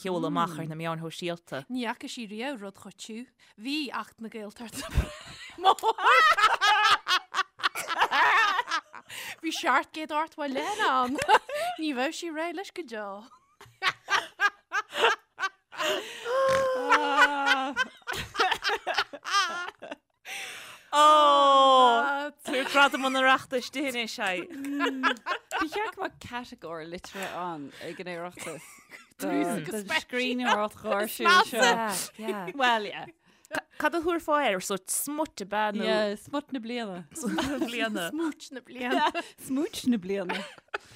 sheoladh amach ar na meáin shóisialta. Ní fhaca sí riamh rud chomh tiubh. Bhí Acht na Gaeltachta mór. Bhí 780 leathanach ann. Ní bheadh sí réidh leis go deo. Ó! Tabhair gradam an Oireachtais di anois, ai. Ba cheart go mbeadh catagóir liteartha ann ag an Oireachtas. Don scríbhneoireacht gháirsiúil seo. Well, yeah. Cad a thabharfá air? Sórt smut ab ea nó? Yeah, smut na bliana. Smut na bliana. Smúit na bliana. Smúit na bliana.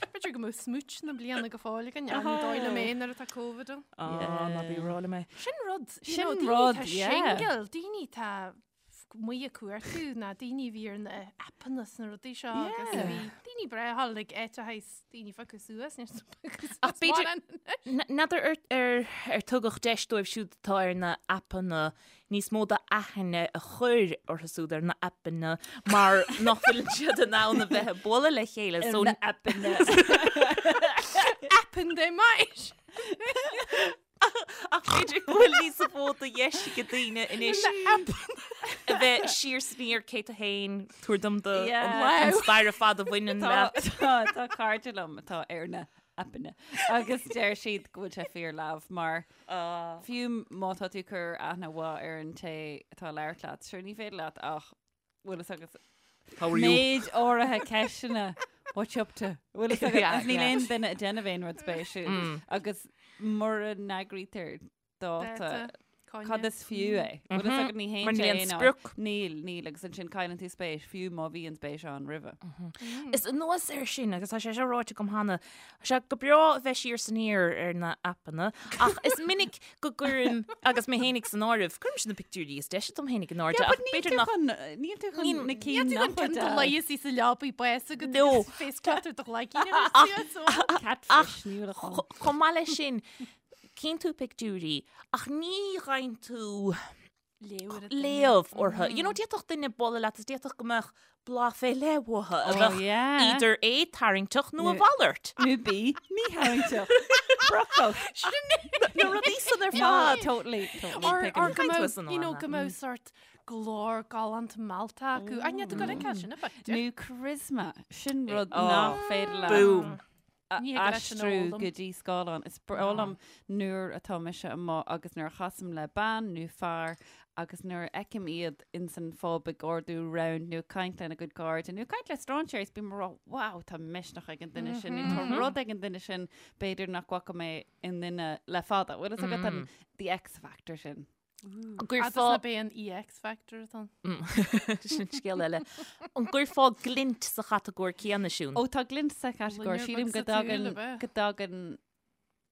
B'fhéidir go mbeadh smúit na bliana go fóill againn, ní dóigh liom é nuair atá Covid ann. Á, ná bí ag rá liom é. Sin rud, you Sin know, daoine rud, atá yeah. single, daoine atá amuigh ag cuartú ná daoine a bhí ar na aipeanna is na rudaí seo agus Yeah. bhí daoine breá thall ag áit a thaghas daoine piocadh suas níor piocadh Ach suas b'fhéidir- mórán anois. N'fheadar ar, ar, ar tugadh deis dóibh siúd atá ar na aipeanna níos mó d'aithne a chur orthu siúd ar na aipeanna mar nach bhfuil siad in ann a bheith ag bualadh le chéile. Ar So, na aipeanna. Aipeann they might. Ach b'fhéidir go bhfuil níos mó de dheis ag daoine anois a bheith siar is aniar cé tú féin, tabhair dom do an stair ar fad a bhaineann leat. Tá cairde liom atá ar na aipeanna agus deir siad go bhfuil sé fíor leamh mar fiú má tá tú ag cur aithne mhaith ar an té atá ag labhairt leat, sure ní féidir leat ach bhfuil fhios agat How are you? méid áirithe ceisteanna what you up to? Bhfuil fhios agat Yeah, agus níl yeah. aon duine ag déanamh aon rud spéisiúil agus mura n-eagraítear dáta cad is fiú é? Bhfuil fhios agat ní Mar théann níl sé aon aon áit. sprioc. Níl, níl agus ansin cailleann tú spéis fiú má bhí an spéis ann roimhe. Is anuas air sin, agus tá sé seo ráite agam cheana, tá sé go breá a bheith siar is aniar ar na aipeanna, ach is minic go gcuirim, agus mé fhéinig san áireamh, cuirimse na pictiúirí is deise dom fhéinig in airde, ach b'fhéidir nach... Níl tú chun na cinn Níl nach tú chun bhfuil do leigheas í sa leabaidh bás agat No. agus face clutter do ghlaicín ar suas ó. Catfish, ní bhfuil a chun. Chomh maith leis sin, cíonn tú pictiúirí, ach ní gheibheann tú léamh orthu. You know, d'fhéadfadh duine bualadh leat is d'fhéadfadh go mbeadh blas fé leith uathu a Oh, bheadh yeah. idir A tarraingteach nó a Nó- mhalairt. Nó B, mítharraingteach. Brocach. Na rudaí san ar No, fad. totally, totally. Or, tuigim. or go Caint mbeadh, tusa nó you know, Anna. go mbeadh sort glór galánta meallta acu. Ach níl tú ag goil sin a bit. Nó charisma, sin rud Oh, nach féidir leat Boom. a Ní thig leis an aistriú fhoghlaim. go dtí scáileán. Is breá liom nuair atá mise amuigh agus nuair a chasaim le bean nó fear agus nuair a fheicim iad ins an phub ag ordú round nó ag caint lena gcuid cairde nó ag caint le strainséirí is bím ag rá wow tá misneach ag an duine sin nó tá rud ag an duine sin b'fhéidir nach bhfaca mé i nduine le fada. Bhfuil fhios agat an the X factor sin. An Agus gcuirfeá ná b'é an EX factor atá ann. Sin scéal eile. An gcuirfeá glint sa chatagóir céanna, Siún? Ó tá glint sa chatagóir. Loinnir Sílim beag go sa tsúil, dtagann ab ea? go dtagann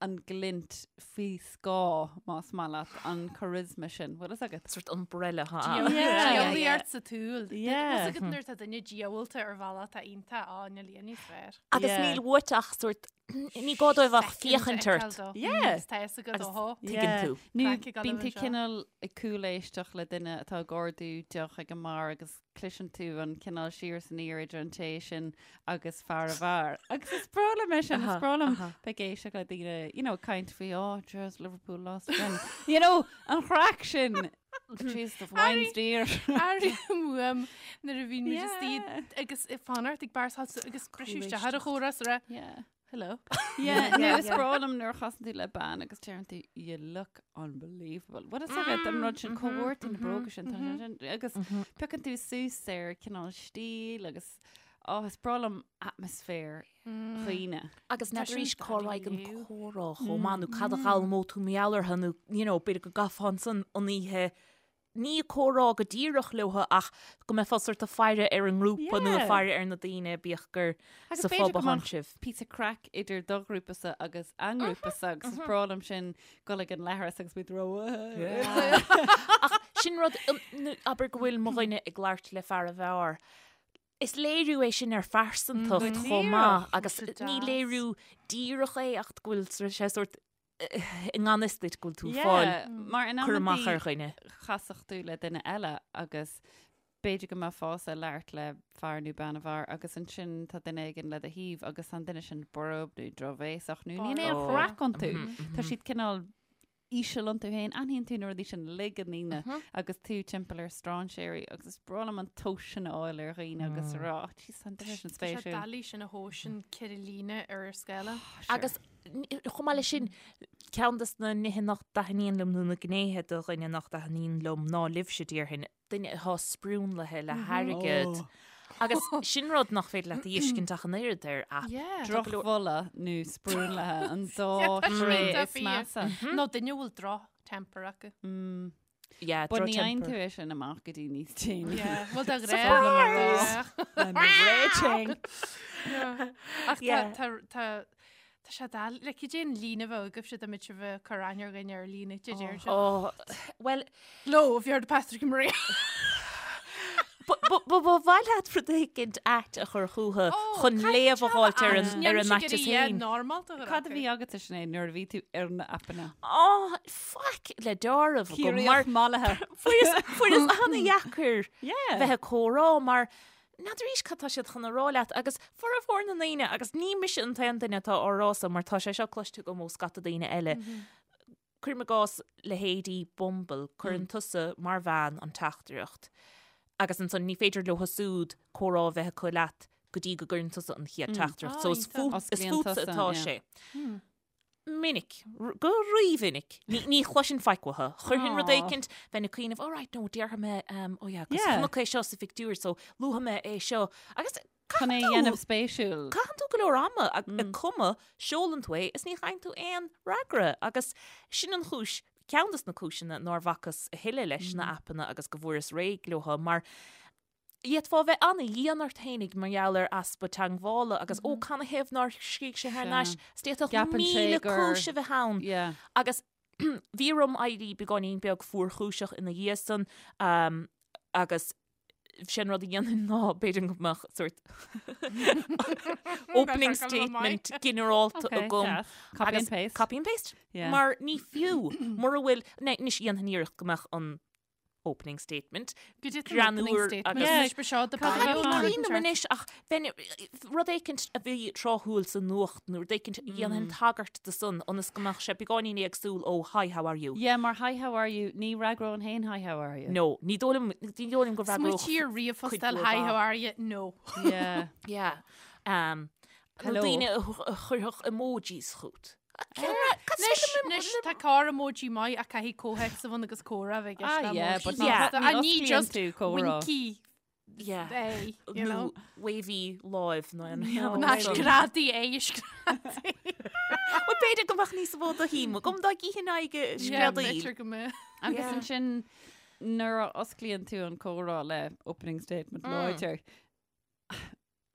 an glint faoi scáth, más maith leat, an charisma sin. Bhfuil fhios agat? Sort umbrella ha. Yeah. Diabhlaíocht sa tsúil. Yeah. Bhfuil fhios agat nuair atá duine diabhalta ar bhealach atá iontach á níl aon níos fearr. Agus Yeah. níl uait ach sort Ní gá dóibh ach féachaint ort. Yeah. Tá fhios agat Agus ó thó. tuigeann tú. Nó Craic ag bíonn dul tú anseo. cineál ag cúléisteacht le duine atá ag ordú deoch ag an mbeár agus cloiseann tú an cineál siar is aniar idir an té sin agus fear an bheáir. Agus is breá liom é sin, is breá liom bheith ag éisteacht le daoine, you know, caint faoi, oh, just Liverpool lost again. You know, an chraic sin. Jeez, the wine's dear. Airím uaim nuair a bhíonn muid istigh Yeah. agus ag fanacht ag beár agus briseadh isteach ar an chomhrá is rá, Yeah. Hello. Yeah, nó is breá liom nuair a chasann tú le bean agus deireann tú you look unbelievable. Bhfuil fhios agat an rud sin cá bhfuair tú na bróga sin tá sé sin agus piocann tú suas ar cineál stíl agus oh, is breá liom atmaisféar dhaoine. Agus Tá n'fheadar sin arís cá raghadh an dáiríre. comhrá chomh maith nó cad a d'fhoghlaimeodh tú mar gheall orthu nó you know, b'fhéidir go gcaithfeá ansan an oíche ní ag comhrá go díreach leo ach go mbeifeá sort ag faire ar an ngrúpa nó ag Yeah. faire ar na daoine bíodh gur Agus sa b'fhéidir phub go a thánn mbeadh sibh. píosa craic idir do ghrúpasa agus a ngrúpasa agus is breá liom sin dul ag an leithreas agus muid ró. Ach Sin rud, abair go bhfuil mo dhuine ag labhairt le fear an bheáir. Is léiriú é sin ar phearsantacht chomh maith agus ní léiriú díreach é ach go bhfuil sé sórt i ngan fhios duit go bhfuil tú ag fáil Mar in cur amach ar dhuine. Chasfadh tú le duine eile agus b'fhéidir go mbeifeása ag labhairt le fear nó bean an bheáir agus ansin tá duine éigin le do thaobh agus tá an duine sin borb nó drochbhéasach nó níl aon chraic iontu. Tá siad cineál íseal iontu féin, aithníonn tú na rudaí sin uilig i ndaoine agus tú timpeall ar strainséirí agus is breá liom an tomhas sin a fháil ar dhaoine agus a rá, oh, jeez, tá an duine sin Tá sé spéisiúil. doiligh sin a thomhas in ceithre líne ar ar scála. Agus chomh maith leis sin, ceann de na nithe nach dtaitníonn liom nó na gnéithe de dhuine nach dtaitníonn liom ná libhse, déarfainn, duine atá sprionlaithe le hairgead. Agus sin rud nach féidir leat a fheiscint ach an oiread ar aip. Drochbholadh nó sprionlaithe an dá thréith is measa. Nó duine a bhfuil droch-temper acu. Yeah, But ní fhaigheann droch-temper. tú é sin amach go dtí níos déanaí. Bhuel de Surprise! ghnáth. I'm raging. Ach Yeah. tá tá tá sé doiligh, like, cad é an líne a bheadh agaibhse dá mbeadh sibh ag cur aithne ar dhuine ar líne, did you? Oh, well, Hello, have you heard of Patrick and Maria? Ba mhaith leat rud éicint ait a chur chucu chun léamh a fháilt ar an ar an aiteas féin. Cad a bhí agatsa Sinéad nuair a bhí tú ar na aipeanna? Á, faic le deáramh agam mar Ciarraíoch mallaithe. fuaireas fuaireas an-dheacair Yeah. bheith ag comhrá mar n'fheadar arís cad tá siad chun a rá leat agus formhór na ndaoine agus ní mise an t-aon duine atá á rá so mar tá sé seo cloiste agam ó scata daoine eile. Cuirim i gcás leithéidí Bumble, cuireann tusa mar bhean an teachtaireacht agus ansan ní féidir leo siúd comhrá a bheith acu leat go dtí go gcuireann tusa an chéad teachtaireacht. So is fútsa atá sé. Minic, go rímhinic, ní chloisinn faic uathu. Chuirfinn rud éicint, bheinn ag cuimhneamh, oh right, no, déarfaidh mé, oh yeah, 'cause chonac é seo sa phictiúr, so luafaidh mé é seo. Agus Chun é a dhéanamh spéisiúil. Caitheann tú go leor ama ag cumadh, seolann tú é is ní fhaigheann tú aon fhreagra. Agus sin an chúis, ceann dos na cúiseanna nár bhacas a thuilleadh leis na aipeanna agus go bhfuaireas réidh leo mar D'fhéadfá a bheith ana-dhian ort fhéinig mar gheall ar easpa teangmhála agus ó canathaobh nár scrígh sé thar n-ais, is d'fhéadfadh 1,000 cúis a bheith ann. Agus bhí orm éirí beagáinín beag fuarchúiseach ina dhiaidh san agus sé an rud a dhéanfainn ná b'fhéidir go mbeadh sórt opening statement ginearálta agam. Copy and paste. Copy and paste. Mar ní fiú mura bhfuil, anois dhéanfainn iarracht go mbeadh an opening statement. Greannmhar agus Cuimhin liom anois ach bheinn rud éicint a bhí tráthúil sa nuacht nó rud éicint a dhéanfainn tagairt do san ionas go mbeadh sé beagáinín éagsúil ó hi how are you. Yeah, mar hi how are you, ní fhreagróinn féin hi how are you. No, ní dóigh liom, ní dóigh liom go bhfreagródh Smaoitigh ar ríomhphost eile hi how are you, no. Yeah. Yeah. Um, Hello. Daoine a chuirfeadh emojis chugat. Anois tá corr emoji maith ach caithfidh comhthéacs a bheith ann agus comhrá a bheith i gceist Ah, le yeah, emoji. but Yeah. ní And ní osclaíonn just tú comhrá. winky Yeah. é, you Nó know. wavy láimh nó an No. Ná screadaí é, screadaí. Well, b'fhéidir go mbeadh níos mó de shuim agam dá gcífinn aghaidh Yeah, screadaíl. b'fhéidir go mbeadh. Agus Yeah. ansin nuair a osclaíonn tú an comhrá le opening statement láidir,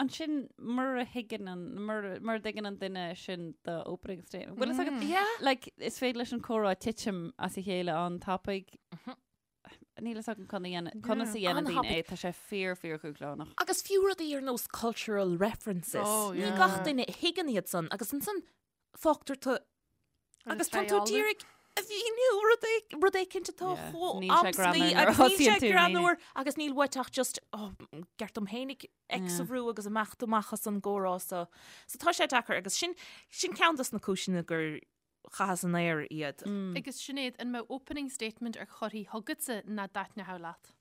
Ansin, mura thuigeann an, mura, mura dtuigeann an duine sin do opening statement. Bhfuil fhios agat, Yeah. like, is féidir leis an comhrá titim as a chéile an-tapaidh. Níl fhios agam conas a dhéanamh, conas a dhéanann daoine An-thapaidh. é, tá sé fíor, fíor dhúshlánach. Agus fiú rudaí ar nós cultural references. Oh, Ní yeah. gach duine a thuigeann iad san agus ansan fágtar tú agus tá tú d'iarraidh a mhíniú rud é- rud éicint atá Yeah. chomh Níl sé amscaí greannmhar nuair a agus níl sé thosaíonn tú, greannmhar agus níl uait ach just oh, ceart dom fhéinig X a Yeah. bhrú agus imeacht amach as an gcomhrá so. So tá sé deacair agus sin sin ceann dos na cúiseanna gur chaitheas in aer iad. Agus Sinéad, an mbeadh opening statement ar curtha chugatsa nach dtaitneodh leat?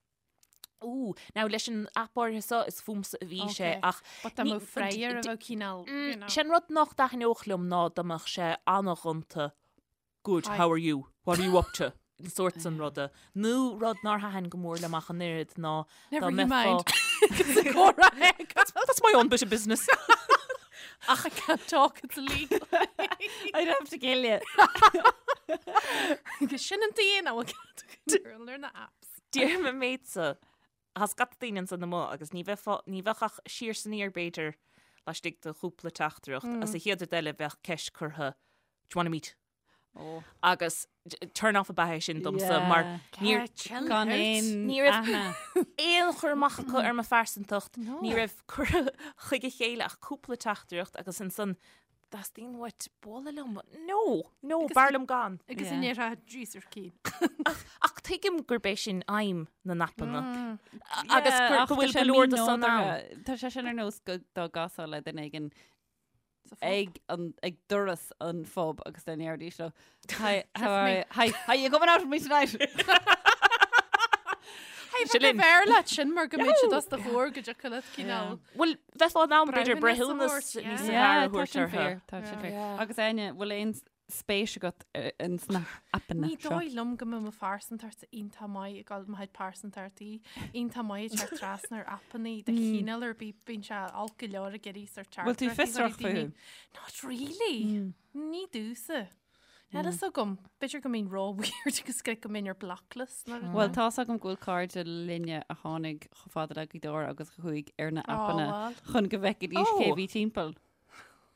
Ooh, now leis an aip áirithe seo is fúmsa a bhí sé Okay. ach But dá ní- mbeadh freagra a bheadh cineál, you know. Sé an rud nach dtaitneodh liom ná dá mbeadh sé an-ghonta Good, Hi. how are you? What are you up to? An sórt san ruda. Nó rud nár thaitin go mór liom ach an oiread ná dá Never you mbeifeá- mind. Comhrá That's, that's my own bit of business. Ach I can't talk, it's illegal. I'd have to kill you. Agus sin an t-aon a bhfuil ar na apps. Déarfainn an méid so, tá scata daoine ansan amuigh agus ní bheifeá, ní bheadh ach siar 's aniar b'fhéidir laistigh de chúpla teachtaireacht agus an chéad rud eile bheadh ceist curtha, do you wanna meet? Oh. Agus turn off ab ea é sin domsa mar níor Gan aon Ní raibh- aithne. aon chur amach acu ar mo phearsantacht, ní raibh curtha chuig a chéile ach cúpla teachtaireacht agus ansan teastaíonn uait bualadh liom. No, no, b'fhearr liom gan. Agus an ndéarfá Jesus cín. Ach tuigim gurb é sin aidhm na n-aipeanna. Agus gur- go bhfuil go leor de san ann. Tá sé sin ar nós go dá gcasfá le duine éigin ag an ag doras an phub agus dá ndéarfaidís leo Hi, how are you? Hi, hi, you coming out with me tonight? Hey, Sin linn. b'fhearr leat sin mar go mbeidh siad os do chomhair go dtiocfadh leat cineál. Bhuel, bheifeá in ann b'fhéidir Breithiúnas breithiúnas a thabhairt, níos yeah. fearr a tá thabhairt sin orthu. fíor, tá sin fíor. Agus Áine, bhfuil aon spéis agat ins na aipeanna Ní seo? dóigh liom go mbeadh mo phearsantacht iontach maith ag dul mo chuid pearsantachtaí iontach maith ag teacht trasna ar aipeanna de chineál ar bith bíonn sé olc go leor ag iarraidh sort Bhfuil tú teachtaireachtaí a chur fiosrach ag daoine. fúthu? Not really. Ní domhsa. Níl fhios agam. B'fhéidir go mbeinn ró-weird agus go mbeinn ar blocklist nó rud. Bhuel, tá's agam go bhfuil cairde linne a tháinig chomh fada le Gaoth Dobhair agus a chuaigh ar na aipeanna bhuel. chun go bhfeicfidís cé Ó. bhí timpeall.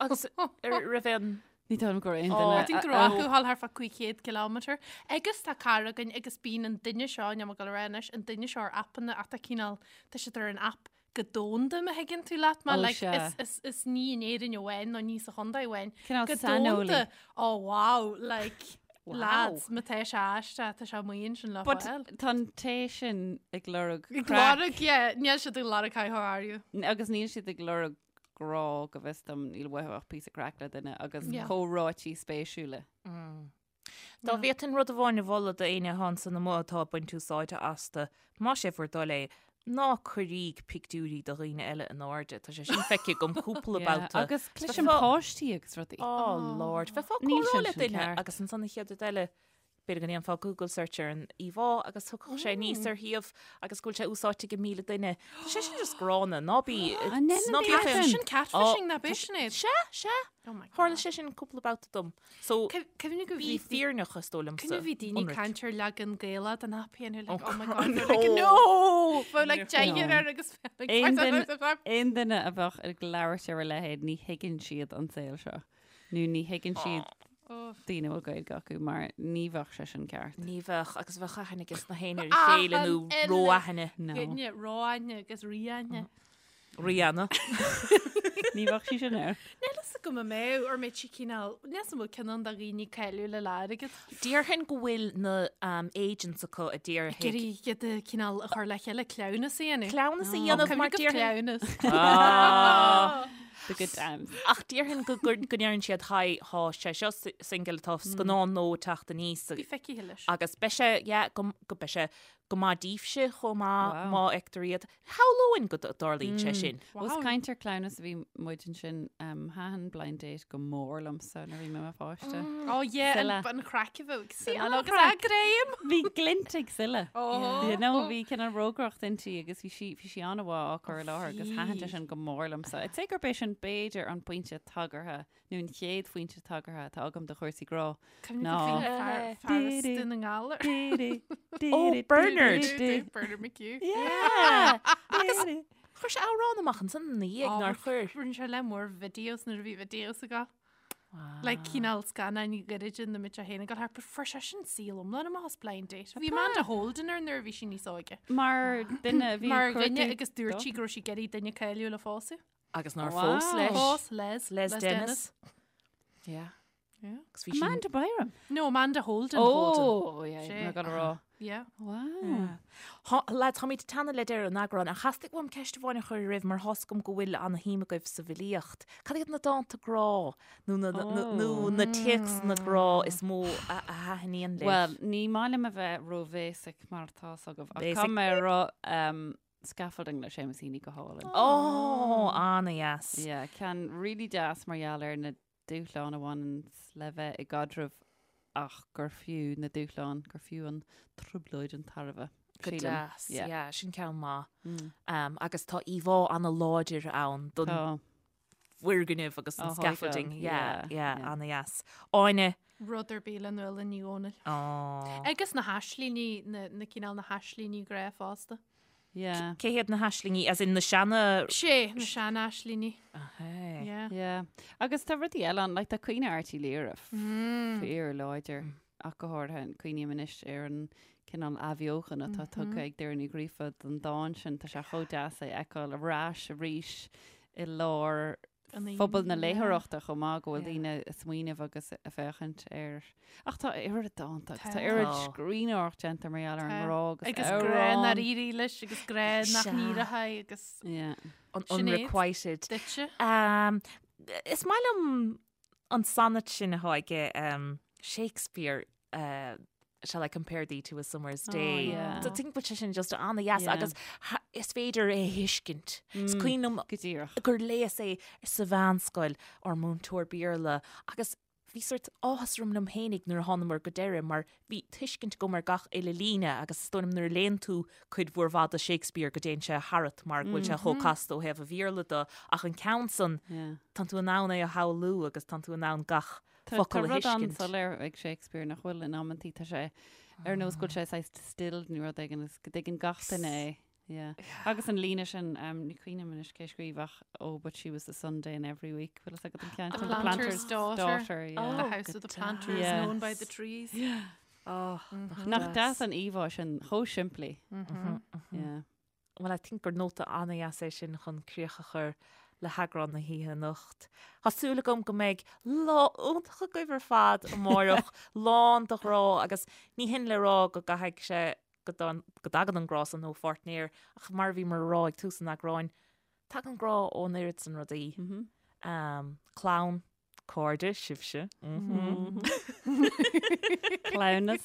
Agus ar raibh aon Ní dóigh liom go raibh aon Ó. duine. I think go raibh acu a ghabháil thart fá 500 kilometre. Agus tá cara againn agus bíonn an duine seo, níl mé ag dul a rá anois, an duine seo ar aipeanna ach tá cineál, tá siad ar an aip go domhanda má thuigeann tú leat mé, Ó, like, sea. is, is, is ní in Éirinn amháin nó ní sa chontae amháin. Cineál Go saineolaí. domhanda, oh wow, like, Wow. lads, má tá sé aisteach, tá sé amuigh ansin le But fáil. tá an té sin ag lorg Ag craic lorg, yeah, níl siad ag lorg hi, how are you? agus níl siad ag lorg grá go bhfios dom, níl uathu ach píosa craic le duine agus Yeah. comhráití spéisiúla. Dá bhféadfainn rud amháin a mholadh d'éinne atá ansan amuigh atá ag baint úsáide astu, más é bhur dtoil é, ná cuiríg pictiúirí de dhaoine eile in airde. Tá sé sin feicthe agam cúpla Yeah, babhta. Agus cloisim Bheifeá- páistí agus rudaí. Oh Lord, bheifeá ag Níl comhrá sin le sin duine ceart. agus ansan an chéad rud eile, b'fhéidir go ndéanfá Google search ar an íomhá agus thiocfadh sé aníos ar shuíomh agus go bhfuil sé úsáidte ag 1,000 duine. Tá sé sin just gránna, ná bí An ndéanann ná bí daoine féin- sin? Sin catfishing ná tá b'é sin é. Sea, sea. Oh my God. Tharla sé sin cúpla babhta dom. So, Cuimhnigh go bí bhí fírinneach is dóigh liomsa. Cuimhnigh bhí daoine Ionraic. caint ar leagan Gaelach den aip féin like, Oh, oh my God, God, no. they're like, no! Bheadh like deichear No. air agus like, Aon duine- Aon duine a bheadh ag labhairt ar a leithéid ní thuigeann siad an saol seo. Nó ní thuigeann siad Oh. daoine a bhfuil Gaeilge acu mar ní bheadh sé sin ceart. Ní bheadh agus bheadh aithne aige na héinne ar a chéile nó Achan uile ró-aithne. No. Duine ró-aithne agus rí-aithne. Rihanna. Ní bheadh sí sin air. Níl fhios agam an mbeadh ar mbeidh sí cineál, níl fhios an bhfuil cineál de dhaoine cáiliúla le airgead. Déarfainn go bhfuil na um, agents acu a déarfaidh. Iarraidh iad a cineál a chur le chéile cleamhnas a dhéanamh. Cleamhnas a dhéanamh mar Cuimhnigh déarfainn. cleamhnas. Ah. The good times. Ach déarfainn go go go ndeireann siad hi tá sé seo si- single tá scannán nua ag teacht aníos Bí feicthe leis. agus beidh sé yeah, go go beidh sé go maith daoibhse chomh maith Wow. má fheictear iad. Shamhlóinn go dtarlaíonn sé sin. Os caint ar cleamhnas a bhí muid ansin um, thaitin blind date go mór liomsa nuair a bhí mé i mo pháiste. Oh yeah, Sile. an chraic a bheadh ag Sile an agus chraic. a greim. Bhí glint ag Sile. Oh. You know, bhí cineál rógaireacht inti agus bhí sí bhí sí an-mhaith á cur i láthair agus thaitin sé sin go mór liomsa. I'd say gurb é sin b'fhéidir an pointe tagartha nó an chéad phointe tagartha atá agam do chúrsaí grá. Ná. Fear as Dún na nGall. Oh, Bernard. Bernard McHugh. Yeah. Agus chuir sé amhrán amach ansan ina dhiaidh nár chuir. Rinne sé lear mór videos nuair a bhí videos aige. Like cineál scannáin ghairide na mbeadh sé féin ag dul thart, but fuair sé sin saol iomlán amach as Blind Date. Bhí Amanda Holden air nuair a bhí sí níos óige. Mar duine a bhí Mar ag dhuine cuartú agus dúirt sí go raibh sí ag iarraidh duine cáiliúil a phósadh. Agus nár Wow. phós leis. Phós Les. Les Dennis. Yeah. Yeah. Agus bhí sin- Amanda Byram. No, Amanda Holden. Oh, yeah, Sé. I'm gonna rá. Yeah. Wow. Há- Lads, táimid ag teannadh le deireadh an eagráin, ach theastaigh uaim ceist amháin a chur oraibh mar tá's agam go bhfuil ana-shuim agaibh sa bhfilíocht. Cad iad na dánta grá nó na, na, na, nó na téacsanna grá is mó a, a thaitníonn libh? Well, ní maith liom a bheith ró-basic mar tá's agaibh. Ach Basic. caithfidh mé a rá um, Scaffolding le Seamus Heaney go hálainn. Ó, ana-dheas. Yeah, ceann really deas mar gheall ar na dúshláin a bhaineann le bheith i gcaidreamh ach gur fiú na dúshláin, gur fiú an trioblóid an tairbhe. Go Sílim. deas. Yeah. Yeah, sin ceann maith. Mm. Um, agus tá íomhá ana-láidir ann don Tá. bhfoirgneamh agus an Ó, scaffolding. thógáil. Yeah, Yeah, yeah, yeah. ana-dheas. Áine. Rud ar bith le Nuala Ní Dhomhnaill. Ó. Agus na haislíní, na, na cineál na haislíní grá fosta. Yeah. Cé hiad na haislingí, as in na seana... Sé, na sean-aislingí. Ahé. Yeah. Yeah. Agus tá rudaí eile ann, like tá Caoineadh Airt Uí Laoghaire fíor láidir, ach go háirithe cuimhním anois ar an cineál athbheochan atá tugtha ag Doireann Ní Ghríofa don dán sin, tá sé chomh deas é a fheiceáil ar ais arís i lár phobal na léitheoireachta chomh maith go bhfuil daoine ag smaoineamh agus ag féachaint air. Ach tá oiread dánta agus tá oiread scríbhneoireacht déanta mar gheall ar an ngrá agus Agus grá nár éirigh leis agus grá nach n-éireoidh agus An unrequited. Duitse. Is maith liom an sonnet sin atá aige Shakespeare Shall I compare thee to a summer's day? Oh, yeah. So think bhfuil sé sin just an-dheas Yeah. agus is féidir é a thuiscint. Is cuimhin liom Go díreach. gur léas é sa mheánscoil ár múinteoir Béarla agus bhí sort áthas orm liom fhéinig nuair a thánamar go deireadh mar bhí tuiscint agam ar gach uile líne agus is dóigh liom nuair a léann tú cuid mhór mhaith de Shakespeare go dtéann sé tharat mar go bhfuil sé chomh casta ó thaobh an Bhéarla de ach an ceann san Yeah. tánn tú in ann é a shamhlú agus tánn tú in ann gach Tá focal a rud thuiscint. an-soiléir ag Shakespeare nach bhfuil in amantaí tá sé ar nós go bhfuil sé saghas distilled nó rud éigin is go dtuigeann gach duine é. Yeah. Agus an líne sin um, ní cuimhin liom anois cé scríobh ach oh but she was the Sunday in every week. Bhfuil fhios agat an ceann The sin? planter's daughter. daughter yeah. The Oh, house of the go planter is deas. known by the trees. Oh, Nach deas an íomhá sin chomh simplí. Yeah. Bhuel, I think gur nóta an-dheas é sin chun críoch a chur le heagrán na hoíche anocht. Tá súil agam go mbeidh lá iontach agaibh ar fad amárach, lán de ghrá agus ní hin le rá go gcaithfidh sé go dtagann an grá san ó pháirtnéir ach mar a bhíomar a rá ag tús an eagráin, tagann grá ón oiread san rudaí. Clann, Cairde, sibhse. Cleamhnas.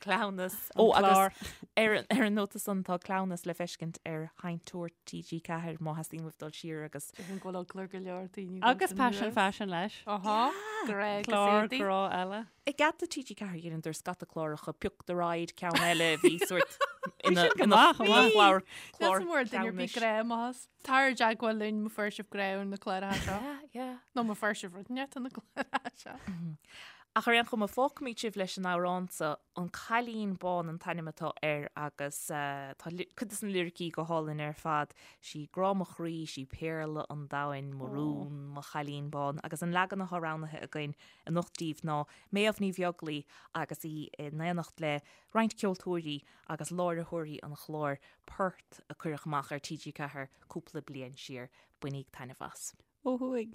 Cleamhnas. Ó, agus ar ar an nóta san tá cleamhnas le feiscint ar Sheinnteoir TG4 má theastaíonn uaibh dul siar agus. Déarfainn go bhfuil eagla ar go leor daoine. Agus Paisean Faisean leis. Aha, grá agus Clár éadaí. grá eile. I gcead do TG4 dheineadar scata cláracha Pioc the Ride ceann eile bhí sort ina sin go maith, chomh maith. chlár Clár duine ar bith cleamhnais. grá amach. Tar i dteagmháil linn má fuair sibh grá ar na cláracha seo. Yeah, yeah. Nó má fuair sibh rud inteacht ar na cláracha seo. Ach ar aon chuma, fágfaimid sibh leis an amhrán seo, An Cailín Bán an t-ainm atá air agus tá cuid de na liricí go hálainn ar fad, Sí grá mo chroí, sí péarla an domhain, mo rún, mo chailín bán. Agus an leagan atá roghnaithe againn anocht daoibh ná Méabh Ní Bheaglaoi agus í in éineacht le roinnt ceoltóirí agus láithreoirí an chláir Port a cuireadh amach ar TG4 cúpla bliain siar. Bainíg taitneamh as. Ó thuaidh.